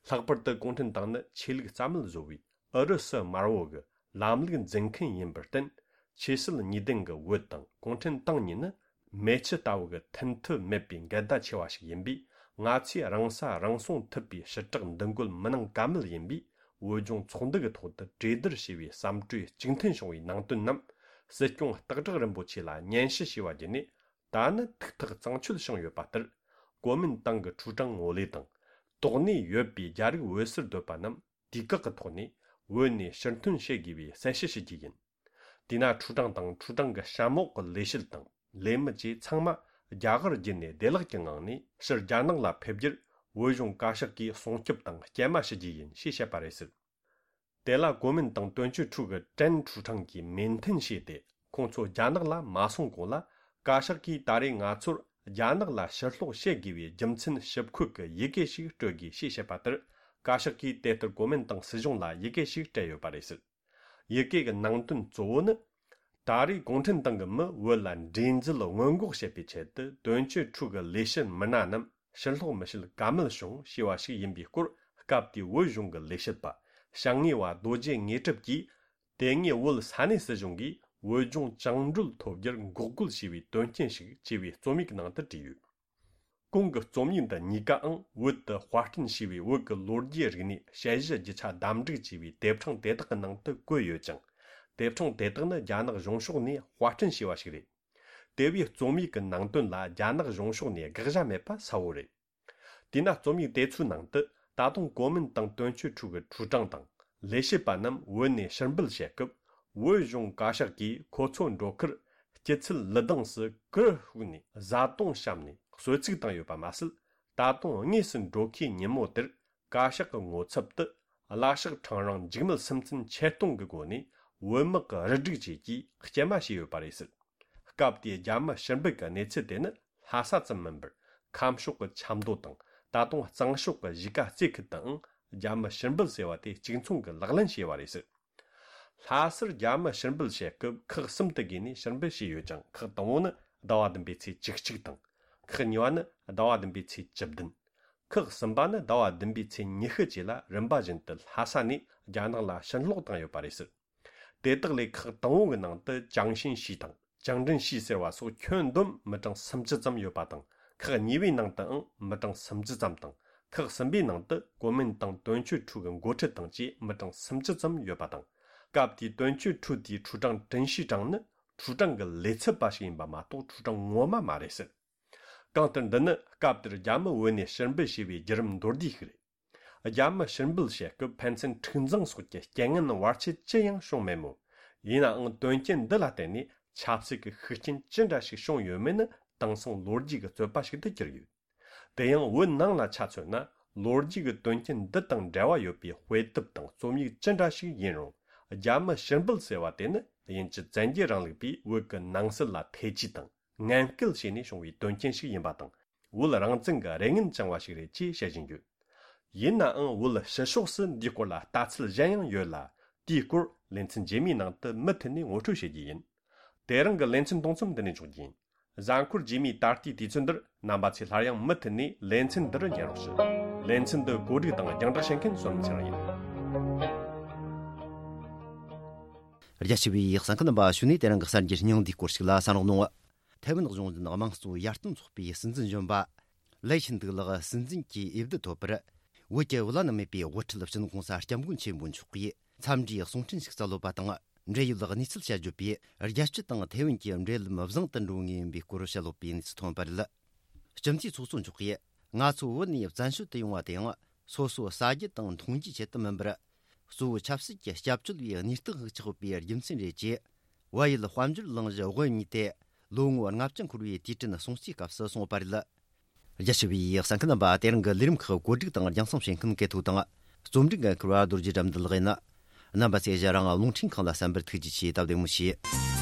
ལྷག་པར་དུ་གུང་ཁྲན་ཏང་ནི་ཆོས་ལུགས་རྩ་མེད་བཟོ་བའི་ཨུ་རུ་སུ་དམར་བོ་གི་ལམ་ལུགས་འཛིན་མཁན་ཡིན་པར་བརྟེན། ཆོས་སྲིད་གཉིས་ལྡན་གྱི་བོད་དང་གུང་ཁྲན་ཏང་གཉིས་ནི་མེ་ཆུ་ལྟ་བུ་གི་མཐུན་ཐབས་མེད་པའི་འགལ་ཟླ་ཆེ་བ་ཞིག་ཡིན་པས། ང་ཚོས་རང་ས་རང་སྲུང་ཐུབ་པའི་ཞི་དྲག་འདུ་འགོད་མི་གནང་ཀ་མེད་ཡིན་པས། བོད་ལྗོངས་ཚོགས་འདུ་གི་ཐོག་ཏུ་གྲོས་བསྡུར་བྱས་པའི་བསམ་གྲོས་གཅིག་མཐུན་བྱུང་བའི་ནང་དོན་རྣམས་སྲིད་སྐྱོང་སྟག་བྲག་རིན་པོ་ཆེ་ལ་སྙན་ཞུ་བྱས་པ་བརྒྱུད་ནས། ད་ནི་ཐུགས་ཐག་གཙང་ཆོད་བྱུང་ཡོད་པ་ལྟར། གོ་མིན་ཏང་གི་ཁྲུའུ་ཀྲང་ངོ་ལས་དང་། དོགས་གནས་ཡོད་པའི་རྒྱ་རིགས་བོད་སར་སྡོད་པ་རྣམས་དུས་བཀག་གི་ཐོག་ནས་བོད་ནས་ཕྱིར་ཐོན་བྱེད་དགོས་པའི་གསལ་བཤད་ཞུ་རྒྱུ་ཡིན། དེས་ན་ཁྲུའུ་ཀྲང་དང་ཁྲུའུ་ཀྲང་གི་གཤམ་འོག་གི་ལས་བྱེད་དང་ལས་མི་བཅས་ཚང་མ་རྒྱ་གར་བརྒྱུད་ནས་བདེ་བླག་གི་ངང་ནས་ཕྱིར་རྒྱ་ནག་ལ་ཕེབས་རྒྱུར་བོད་གཞུང་བཀའ་ཤག་གིས་སྲུང་སྐྱོབ་དང་སྐྱེལ་མ་ཞུ་རྒྱུ་ཡིན་ཞེས་བཤད་པ་རེད་ཟེར། དེ་ལ་གོ་མིན་ཏང་དོན་གཅོད་ཁྲུའུ་གི་ཀྲན་ཁྲུའུ་ཀྲང་གིས་མོས་མཐུན་བྱས་ཏེ། ཁོང་ཚོ་རྒྱ་ནག་ལ་མ་སོང་གོང་ལ། བཀའ་ཤག་གིས་ད་རེས་ང་ཚོར་རྒྱ་ནག་ལ་ཕྱིར་སློག་བྱེད་དགོས་པའི་རྒྱུ་མཚན་ཞིབ་འཁོད་ཀྱི་ཡི་གེ་ཞིག་སྤྲོད་དགོས་ཞེས་བཤད་པ་ལྟར། བཀའ་ཤག་གིས་དེ་ལྟར་གོ་མིན་ཏང་སྲིད་གཞུང་ལ་ཡི་གེ་ཞིག་སྤྲད་ཡོད་པ་རེད་ཟེར། ཡི་གེ་གི་ནང་དོན་གཙོ་བོ་ནི། ད་རེས་གུང་ཁྲན་ཏང་གི་མི་བོད་ལ་འདྲེས་འཛུལ་སྔོན་འགོག་བྱེད་པའི་ཆེད་དུ། དོན་གཅོད་ཁྲུའུ་གི་ལས་བྱེད་མི་སྣ་རྣམས་ཕྱིར་སློག་མི་བྱེད་ཀ་མེད་བྱུང་ཞེས་པ་ཞིག་ཡིན་པའི་སྐོར། སྐབས་དེའི་བོད་གཞུང་གི་ལས་བྱེད་པ་བྱང་ངེས་པ་རྡོ་རྗེ་དངོས་གྲུབ་ཀྱིས། དེ་སྔའི་བོད་ས་གནས་སྲིད་གཞུང་གིས་བོད་ལྗོངས་བཅིངས་འགྲོལ་ཐོབ་རྒྱུར་འགོག་རྒོལ་བྱས་པའི་དོན་རྐྱེན་ཞིག་ཅེས་པའི་རྩོམ་ཡིག་ནང་དུ་བྲིས་ཡོད། གོང་གི་རྩོམ་ཡིག་འདི་གཉིས་ཀའང་བོད་དུ་དཔར་སྐྲུན་བྱས་པའི་བོད་ཀྱི་ལོ་རྒྱུས་རིག་གནས་དཔྱད་གཞི་རྒྱུ་ཆ་བདམས་བསྒྲིགས་བྱས་པའི་དེབ་ཕྲེང་དེ་དག་གི་ནང་དུ་བཀོད་ཡོད་ཅིང་། དེབ་ཕྲེང་དེ་དག་ནི་རྒྱ་ནག་གཞུང་ཕྱོགས་ནས་དཔར་སྐྲུན་བྱས་པ་ཞིག་རེད། དེ་བས་རྩོམ་ཡིག་གི་ནང་དོན་ལ་རྒྱ་ནག་གཞུང་ཕྱོགས་ནས་དགག་བྱ་མེད་པ་གསལ་བོ་རེད། དེས་ན་རྩོམ་ཡིག་དེ་ཚོའི་ནང་དུ་ད་དུང་གོ་མིན་ཏང་དོན་གཅོད་ཁྲུའུ་གི་ཁྲུའུ་ཀྲང་དང་ལས་བྱེད་པ་རྣམས་བོད་ནས་ཕྱིར་འབུད་བྱེད་སྐབས། བོད་གཞུང་བཀའ་ཤག་གིས་ཁོ་ཚོ་འགྲོ་ཁར་སྐྱིད་ཚལ་ལི་སྡིངས་སུ་གུར་ཕུབ་ནས་བཟའ་བཏུང་བཤམས་ནས་གསོལ་ཚིགས་བཏང་ཡོད་པ་མ་ཟད། ད་དུང་དངོས་སུ་འགྲོ་ཁའི་ཉིན་མོ་དེར་བཀའ་ཤག་གི་ངོ་ཚབ་ཏུ་གླ་ཤག་ཁྲང་རིང་འཇིགས་མེད་སུམ་རྩེན་ཆེད་གཏོང་གི་སྒོ་ནས་བོད་དམག་གི་རུ་སྒྲིག་བཅས་ཀྱིས་སྐྱེལ་མ་བྱས་ཡོད་པ་རེད་ཟེར། སྐབས་དེའི་རྒྱ་མི་ཕྱིར་འབུད་ཀྱི་གནས་ཚུལ་དེ་ནི་ལྷ་ས་ཙམ་མིན་པར། ཁམས་ཕྱོགས་ཀྱི་ཆབ་མདོ་དང་། ད་དུང་གཙང་ཕྱོགས་ཀྱི་གཞིས་ཀ་རྩེ་ཁུལ་དུའང་རྒྱ་མི་ཕྱིར་འབུད་ཟེར་བ་དེ་གཅིག་མཚུངས་ཀྱིས་ལག་ལེན་བྱས་པ་རེད་ཟེར། ལྷ་སར་རྒྱ་མི་ཕྱིར་འབུད་བྱེད་སྐབས་ཁག་གསུམ་དུ་བགོས་ནས་ཕྱིར་འབུད་བྱས་ཡོད་ཅིང་། ཁག་དང་པོ་ནི་ཟླ་བ་བདུན་པའི་ཚེས་བཅུ་གཅིག་དང་། ཁག་གཉིས་པ་ནི་ཟླ་བ་བདུན་པའི་ཚེས་བཅུ་བདུན། ཁག་གསུམ་པ་ནི་ཟླ་བ་བདུན་པའི་ཚེས་ཉི་ཤུ་བཅས་ལ་རིམ་པ་བཞིན་དུ་ལྷ་ས་ནས་རྒྱ་ནག་ལ་ཕྱིར་སློག་བཏང་ཡོད་པ་རེད་ཟེར། དེ་དག་ལས་ཁག་དང་པོ་གི་ནང་དུ་ཅང་ཤིན་ཤི་དང་ཅང་ཀྲིན་ཤི་ཟེར་བ་སོགས་ཁྱོན་བསྡོམས་མི་གྲངས་སུམ་ཅུ་ཙམ་ཡོད་པ་དང་། ཁག་གཉིས་པའི་ནང་དུའང་མི་གྲངས་སུམ་ཅུ་ཙམ་དང་། ཁག་གསུམ་པའི་ནང་དུ་གོ་མིན་ཏང་དོན་གཅོད་ཁྲུའུ་གི་འགོ་ཁྲིད་དང་བཅས་མི་གྲངས་སུམ་ཅུ་ཙམ་ཡོད་པ་དང་། སྐབས་དེའི་དོན་གཅོད་ཁྲུའུ་དེའི་ཁྲུའུ་ཀྲང་ཀྲིན་ཤི་ཀྲང་ནི་ཁྲུའུ་ཀྲང་གི་ལས་ཚབ་པ་ཞིག་ཡིན་པ་མ་གཏོགས་ཁྲུའུ་ཀྲང་ངོ་མ་མ་རེད་ཟེར། གང་ལྟར་འདི་ནི་སྐབས་དེར་རྒྱ་མི་བོད་ནས་ཕྱིར་འབུད་བྱས་པའི་བརྒྱུད་རིམ་མདོར་བསྡུས་ཤིག་རེད། རྒྱ་མི་ཕྱིར་འབུད་བྱེད་སྐབས་ཕན་ཚུན་འཁྲུག་འཛིང་སོགས་ཀྱི་རྐྱེན་ངན་བར་ཆད་ཅི་ཡང་བྱུང་མེད་མོད། ཡིན་ནའང་དོན་རྐྱེན་འདི་ལ་བརྟེན་ནས་ཆབ་སྲིད་ཀྱི་ཤུགས་རྐྱེན་ཅི་འདྲ་ཞིག་བྱུང་ཡོད་མེད་ནི་དེང་སང་ལོ་རྒྱུས་ཀྱི་རྩོད་པ་ཞིག་ཏུ་གྱུར་ཡོད། དེ་ཡང་བོད་ནང་ལ་ཆ་མཚོན་ན། ལོ་རྒྱུས་ཀྱི་དོན་རྐྱེན་འདི་དང་འབྲེལ་བ་ཡོད་པའི་དཔེ་དེབ་དང་རྩོམ་ཡིག་ཅི་འདྲ་ཞིག་ཡིན་རུང་། རྒྱ་མི་ཕྱིར་འབུད་ཟེར་བ་དེ་ནི་དབྱིན་ཇི་བཙན་རྒྱལ་རིང་ལུགས་པས་བོད་ཀྱི་ནང་སྲིད་ལ་ཐེ་ཇུས་དང་ངན་སྐུལ་བྱས་ནས་བྱུང་བའི་དོན་རྐྱེན་ཞིག་ཡིན་པ་དང་། བོད་རང་བཙན་གྱི་རེ་ངན་བཅངས་པ་ཞིག་རེད་ཅེས་བཤད་བཞིན་ཡོད། ཡིན་ནའང་བོད་ཕྱི་ཕྱོགས་སུ་འདིའི་སྐོར་ལ་ལྟ་ཚུལ་གཞན་ཡང་ཡོད་ལ། དེའི་སྐོར་ལེ་ཚན་རྗེས་མའི་ནང་དུ་མུ་མཐུད་ནས་ངོ་སྤྲོད་བྱེད་རྒྱུ་ཡིན། དེ་རིང་གི་ལེ་ཚན་གཏོང་མཚམས་འདི་ནས་འཇོག་རྒྱུ་ཡིན། གཟའ་འཁོར་རྗེས་མའི་ད་ལྟའི་དུས་ཚོད་འདིར་རྣམ་པ་ཚོས་སླར་ཡང་མུ་མཐུད་ནས་ལེ་ཚན་འདི་རུ་ཉན་རོགས་ཞུ། ལེ་ཚན་འདི་གོ་སྒྲིག་དང་རྒྱང་བསྒྲགས་བྱེད་མཁན་བསོད་ནམས་ཚེ་རིང་ཡིན། རྒྱ་ཆེ་བའི་གསན་མཁན་རྣམ་པ་ཞུ་ནས་དེ་རིང་གི་གསར་འགྱུར་སྙིང་བསྡུས་སྐོར་ཞིག་ལ་གསན་རོགས་གནང་། ཐའེ་ཝན་གཞུང་འཛིན་དམངས་གཙོ་ཡར་ཐོན་ཚོགས་པའི་སྲིད་འཛིན་གཞོན་པ་ལའེ་ཆིན་ཏུའུ་ལགས་སྲིད་འཛིན་གྱི་འོས་བསྡུ་ཐོབ་པར། བོད་ཀྱི་བླ་ན་མེད་པའི་དབུ་ཁྲིད་སྤྱི་ནོར་གོང་ས་སྐྱབས་མགོན་ཆེན་པོ་མཆོག་གིས་འཚམས་འདྲིའི་གསུང་འཕྲིན་ཞིག་སྩལ་ཡོད་པ་དང་། འབྲེལ་ཡོད་གནས་ཚུལ་བཤད་བརྗོད་པས། རྒྱལ་སྤྱི་དང་ཐའེ་ཝན་གྱི་འབྲེལ་ལམ་བཟང་དུ་འགྲོ་ངེས་ཡིན་པའི་སྐོར་བཤད་ཡོད་པའི་གནས་ཚུལ་ཐོན་པ་རེད། སྤྱི་འཐུས་ཚོགས་གཙོ་མཆོག་གིས། ང་ཚོ་བོད་ནས་བཙན་བྱོལ་དུ་ཡོང་བ་དེའང་། སོ་སོ་ཟ་རྒྱུ་དང་འཐུང་རྒྱུའི་ཆེད་དུ་མིན་པར། གཙོ་བོ་ཆབ་སྲིད་ཀྱི་སྐྱབས་བཅོལ་བའི་གནས་སྟངས་ཤིག་ཆགས་ཡོད་པའི་རྒྱུ་མཚན་རེད་ཅེས། བལ་ཡུལ་དཔལ་འབྱོར་གླིང་གཞི་དབུ་བརྙེས་ཏེ། ལོ་ངོ་ལྔ་བཅུ་འཁོར་བའི་དུས་དྲན་སྲུང་བརྩིའི་སྐབས་སུ་གསུངས་པ་རེད། རྒྱ་ཆེ་བའི་གསན་མཁན་རྣམ་པ། དེ་རིང་གི་ལས་རིམ་ཁག་གོ་སྒྲིག་དང་རྒྱང་སྲིང་བྱེད་མཁན་སྐལ་ཐོག་དང་། རྩོམ་སྒྲིག་འགན་འཁུར་བ་རྡོ་རྗེ་དགྲ་འདུལ་ལགས་ཡིན། རྣམ་པ་ཚོས་ཞལ་རང་རླུང་འཕྲིན་ཁང་ལ་གསན་པར་ཐུགས་རྗེ་ཆེ། སྟབས་བདེ་མོ་བྱོས།